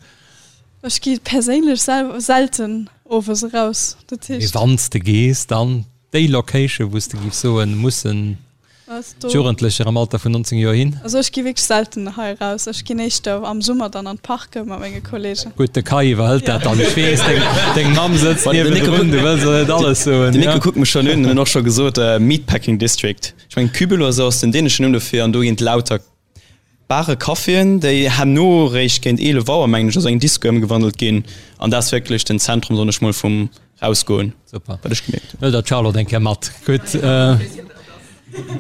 Ech gi perséinlech selten owes eraus, dat heescht. Mee wann s de gees, dann déi Location, wou s de giffs soen, mussen d'Jugendlecher am Alter vun 19 Joer hin? Also ech gi wierklech selten hei eraus. Ech ginn éischter am Summer dann an d'Parke mat menge Kollegen. Gutt, de Kai iwwerhëlt dat dann. Ech weess, deng Mamm sëtzt niewendrun, du wëlls och net alles soen. Den Nico kuckt mech schonn un, en huet och scho gesot, Meatpacking District. Ech mengen, Kübel oder sou ass den däneschen Numm dofir an do ginn lauter Bare Caféen, déi herno réischt géint 11 Auer, mengen ech, a sou eng Disco ëmgewandelt ginn. An dat ass wierklech den Zentrum, soen ech mol, vum Rausgoen, Super. wat ech gemierkt hunn. Hëlt der d'Charlotte eng Kéier mat. Gutt.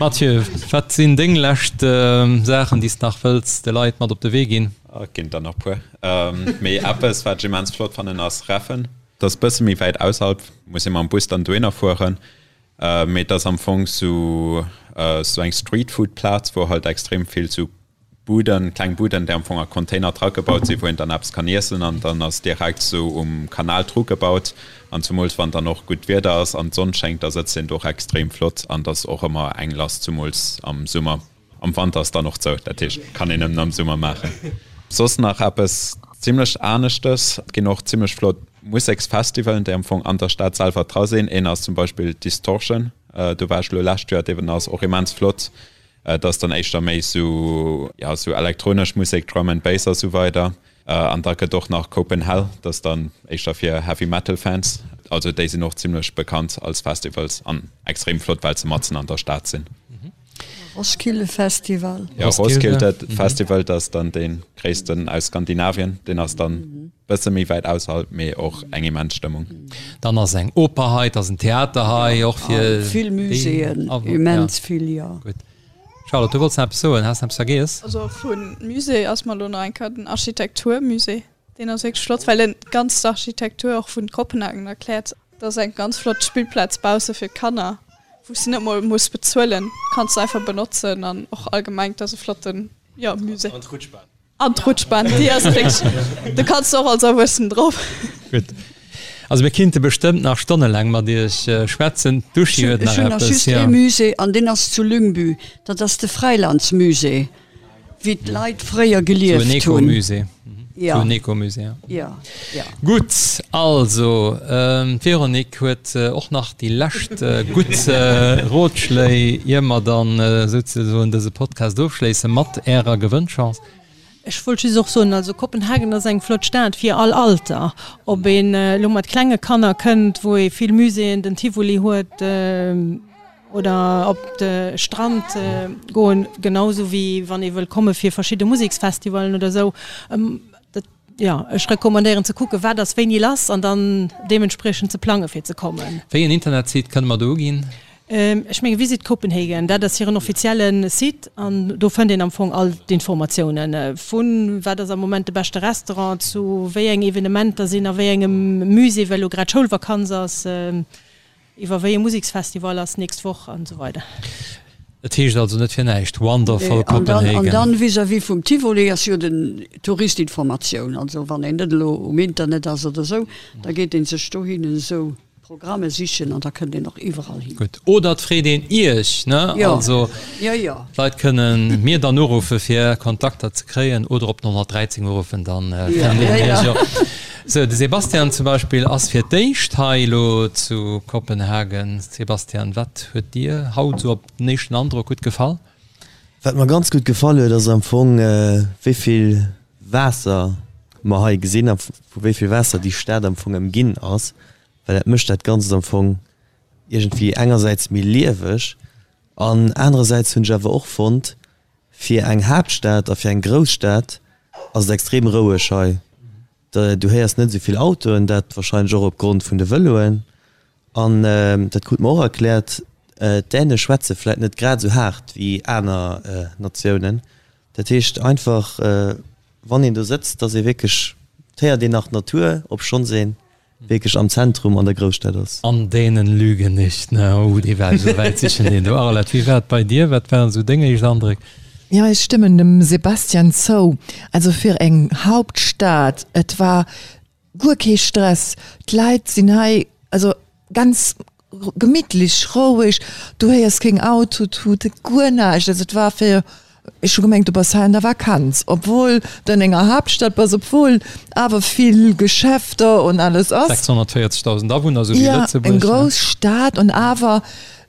Mathieu, wat sinn deng lescht Saachen, déi s de nach wëlls de Leit mat op de Wee ginn? Et ginn der nach puer. Mee eppes, wat ech immens flott fannen, ass Reffen. Dat ass bësse méi wäit ausserhalb, muss ee mam Bus dann dohinner fueren. Mee et ass am Fong sou sou eng Streetfood-Plaz, wou halt extrem vill sou Buden, kleng Buden, déi am Fong a Container dragebaut sinn, wou een dann eppes kann iessen an dann ass direkt sou um Kanal drugebaut. An zumools wann dann och gutt Wieder ass an d'Sonn schéngt, da sëtzt een do och extrem flott an et ass och ëmmer eng lass, zumools am Summer. Am Wanter ass dann och zou, dat heescht kann een nëmmen am Summer maachen. Soss nach eppes zimlech aneschtes, et ginn och zimlech flott Museksfestivalen, déi am Fong an der Stad selwer dra sinn. Een ass zum Beispill Distortion, do war ech elo lescht Joer, deen ass och immens flott. Et ass dann éischter méi sou, jo, sou elektronesch Musek, Drum and Bass a sou weider. An da gëtt och nach Copenhell, dat ass dann éischter fir Heavy Metal Fans. Also déi sinn och zimlech bekannt als Festivals an extrem flott, well se matzen an der Stad sinn. Roskilde Festival. Jo, Roskilde Festival, dat ass dann dee gréissten aus Skandinavien. Deen ass dann bësse méi wäit ausserhalb, mee och eng immens Stëmmung. Dann ass eng Oper hei, et ass en Theater hei, och fir Vill Muséeën, immens vill, jo. Gutt. Charlotte, du wollts nach eppes soen, has nach eppes vergiess? Also vu Musée ass mer elo nach eng Kéier den Architekturmusée, deen ass wierklech flott, well en d'ganz Architektur och vun Kopenhagen erkläert. Et ass eng ganz flott Spillplaz bausse fir d'Kanner, wou s de net mol muss bezuelen, kanns de einfach benotzen an och allgemeng, et ass e flotten, jo, Musée. An d'Rutschbahn. An d'Rutschbahn, déi ass wierklech, do kanns de och als Erwuessen drop. Gutt. Also mir kinnte bestëmmt nach stonnelaang mat iech schwätzen. D'Uschi huet nach eppes. Ech hunn nach just ee Musée an deen ass zu Lyngby, dat ass de Fräilandsmusée. Wéi d'Leit fréier gelieft hunn. Sou en Ecomusée. Ja. Sou en Ecomusée, ja. Ja, ja. Gutt, also d'Véronique huet och nach déi lescht gutt Rotschléi, ier mer dann souzesoen dëse Podcast ofschléisse mat Ärer Gewënnchance. Ech wollt just och soen, also Kopenhagen ass eng flott Stad fir all Alter. Ob een elo mat klenge Kanner kënnt, wou ee vill Muséeën, den Tivoli huet, Oder op de Strand goen, genau sou wéi wann ee wëll komme fir verschidde Museksfestivalen oder sou. Dat, jo, ech recommandéieren ze kucken, wat ass wéini lass an dann deementspriechend ze plange fir ze kommen. Wéi en Internetsite kënne mer do uginn? Ech menge Visit Copenhagen, dat ass hiren offizielle Site an do fënnt een am Fong all d'Informatiounen, vu wat ass am Moment de beschte Restaurant, zu wéi eng Evenementer sinn a wéi engem Musée, well elo grad Schoulvakanz ass. Iwwer wéi e Museksfestival ass nächst Woch an esou weider. Et heescht also net fir näischt Wonderful Copenhagen. An dann vis-à-vis vum Tivoli ass jo den Touristinformatioun. Also wann een net elo um Internet ass oder esou, da geet een sech dohin esou. Programme sichen an da kënnt een och iwwerall hin. Gutt. Oder et freet een Iech, ne? Jo. Also Jo, jo. d'Leit kënnen mir dann uruffe fir Kontakter ze kréien oder op den 113 uruffen, dann fënnt een Iech och. Sou, de Sebastian zum Beispill ass fir d'éischt hei elo zu Kopenhagen. Sebastian, wat huet dir haut esou op den éischten Androck gutt gefall? Wat mer ganz gutt gefall huet, ass am Fong, wéi vill Waasser mer hei gesinn a vu wéi vill Waasser déi Stad am Fong ëmginn ass, well dat mécht dat Ganzt am Fong iergendwéi engersäits méi lieweg an anerersäits hunn ech awer och fonnt, fir eng Haaptstad a fir eng Grousstad ass et extrem roueg hei. Du héiers net esou vill Autoen, dat warscheinlech och opgrond vun de Vëloen. An dat krute mer och erkläert, d'Däne schwätze vläit net grad esou haart wéi aner Natiounen. Dat heescht einfach, wann een do sëtzt, dass ee wierklech, et héiert een nach d'Natur, obschonns ee wierklech am Zentrum an der Grousstad ass. An Dänen lügen nicht, ne? Oh, dee war esou wäit sichen, deen do. Arlette, wéi war et bei dir? Wat waren esou deng éischt Andréck? Jo, ech stëmmen dem Sebastian zou. Also fir eng Hauptstad, et war guer kee Stress. D'Leit sinn hei also ganz gemittlech, roueg, du héiers keng Autotuten, guer näischt. Also et war fir, ech hu gemengt du bass hei an der Vakanz, obwuel de an enger Haaptstad bass, obwuel awer vill Geschäfter und alles ass. 640.000 Awunner, esou wéi Lëtzebuerg. Jo, eng grouss Stad und awer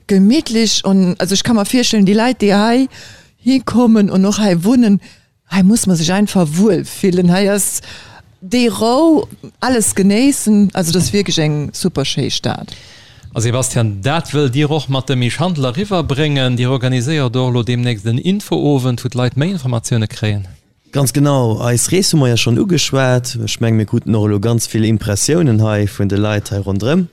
gemittlech und also ech ka mer virstellen, déi Leit déi hei hikommen und och hei wunnen, Hei muss man sech einfach wuel fillen, hei ass déi Rou, alles genéissen, also et ass wierklech eng super schéi Stad. A Sebastian, dat wëllt Dir och mat dem Misch Handel eriwwer bréngen. Dir organiséiert och elo deemnächst en Infoowend, wou d'Leit méi Informatioune kréien. Ganz genau, eis Rees hu mer jo schonn ugeschwat. Ech menge mir kruten och elo ganz vill Impressiounen hei vun de Leit hei ronderëm.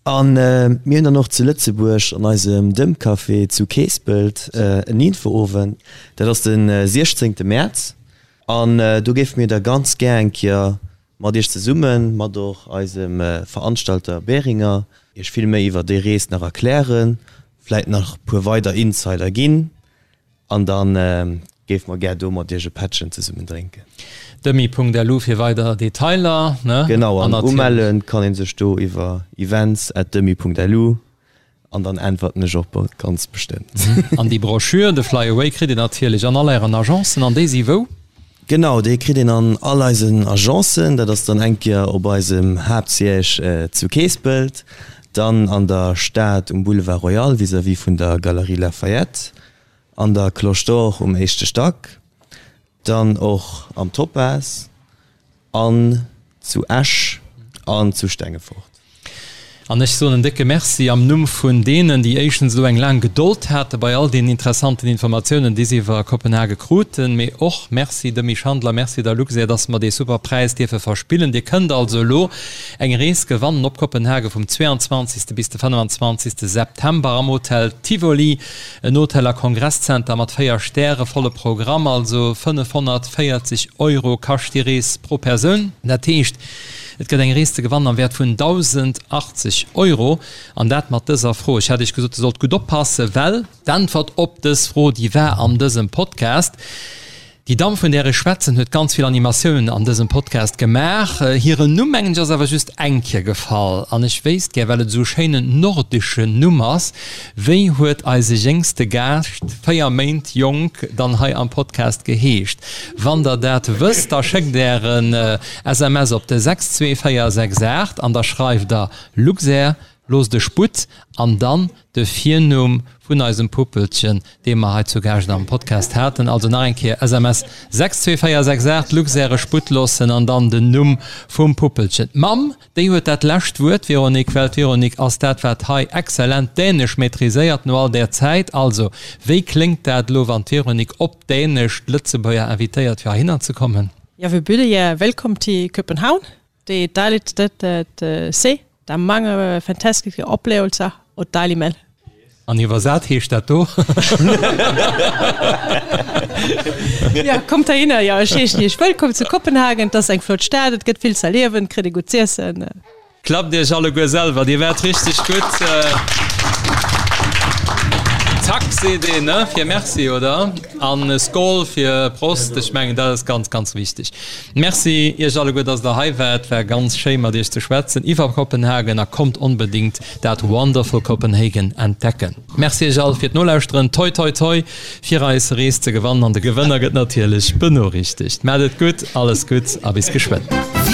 A mir hunn dann och zu Lëtzebuerg an eisem Dëmpcafé zu Keespelt en Infoowend. Dat ass de 16 Mäerz. An do géife mir da ganz gär eng Kéier mat Iech zesummen, mat och eisem Veranstalter Beringer, Iech vill méi iwwer déi Rees nach erklären, vläit nach e puer weider Insider ginn. An dann géife mer gär do mat iech e Pättchen zesummen drénken. Demi.lu fir weider Detailer, ne? Genau, an umelle kann een sech do iwwer events at demi.lu an dann äntwerten ech och ganz bestëmmt. An déi Broschür, de Fly Away, kritt een natierlech an all ären Agencen. An déi si wou? Genau, déi kritt een an all eisen Agencen. Dat ass dann eng Kéier op eisem Haaptsiège zu Keespelt, dann an der Stad um Boulevard Royal vis-à-vis vun der Galerie Lafayette, an der Cloche d'Or um éischte Stack, dann och am Topaz an zu Esch an zu Stengefort. An ech soen en décke Merci am Numm vun deenen, déi éischtens elo eng laang Gedold hate bei all deenen interessanten Informatiounen, déi se iwwer Kopenhage kruten, mee och Merci dem Misch Handler, Merci der Luxair, dass mer dee super Präis dierfe verspillen. Dir kënnt also elo eng Rees gewannen op Kopenhage vum 22. bis de 25. September am Hotel Tivoli, en Hotel a Kongresszenter mat 4 Stäre, volle Programm, also 540 Euro kascht déi Rees pro Persoun. Dat heescht, Et gëtt eng Rees ze gewannen am Wäert vun 1.080 Euro, an dat mat dëser Fro. Ech hat Iech gesot, Dir sollt gutt oppassen, well d'Äntwert op dës Fro, déi war an dësem Podcast. Déi Damm, vun där ech schwätzen, huet ganz vill Animatiounen an dësem Podcast gemaach. Hiren Numm, mengen ech, ass awer just eng Kéier gefall. An ech wéisst gär, well et esou e schéinen nordeschen Numm ass, Wéi huet eise jéngste Gaascht, 4 Méint jonk, dann hei am Podcast geheescht? Wann der dat wësst, da schéckt Ären SMS op de 62468 an da schreift der Luxair, loosst e Sputt an dann de Virnumm vun eisem Puppelchen, dee mer hei zu Gaascht am Podcast haten. Also nach eng Kéier, SMS 62468, Luxair, e Sputt loossen an dann den Numm vum Puppelchen. D'Mamm, déi huet dat lescht Wuert, Véronique, well d'Véronique ass dat, wat hei exzellent Dänesch maîtriséiert no all där Zäit. Also, wéi kléngt dat elo, wann d'Véronique op Dänesch d'Lëtzebuerger invitéiert, fir heihinner ze kommen? Jeg vil byde jer velkommen til København. Det er et dejligt sted at øh, se. Der er mange fantastiske oplevelser og dejlig mad. An iwwersat heescht dat do? Ja, kommt heihinner. Ja, ech heeschen iech wëllkomm zu Kopenhagen. Et ass eng flott Stad, et gëtt vill z'erliewen, et kritt ee gutt z'iessen. Klappt iech alleguer selwer, dir waart richteg gutt. Tak seet een, ne, fir Merci, oder? An Skol fir Prost. Ech mengen, dat ass ganz, ganz wichteg. Merci Iech alleguer, dass Der hei waart. War ganz schéi mat Iech ze schwätzen iwwer Kopenhagen a kommt onbedéngt dat Wonderful Copenhagen entdecken. Merci Iech all fir d'Nolauschteren. Toi, toi, toi fir eis Rees ze gewannen an de Gewënner gëtt natierlech benoriichtegt. Maat et gutt, alles Gutts a bis geschwënn.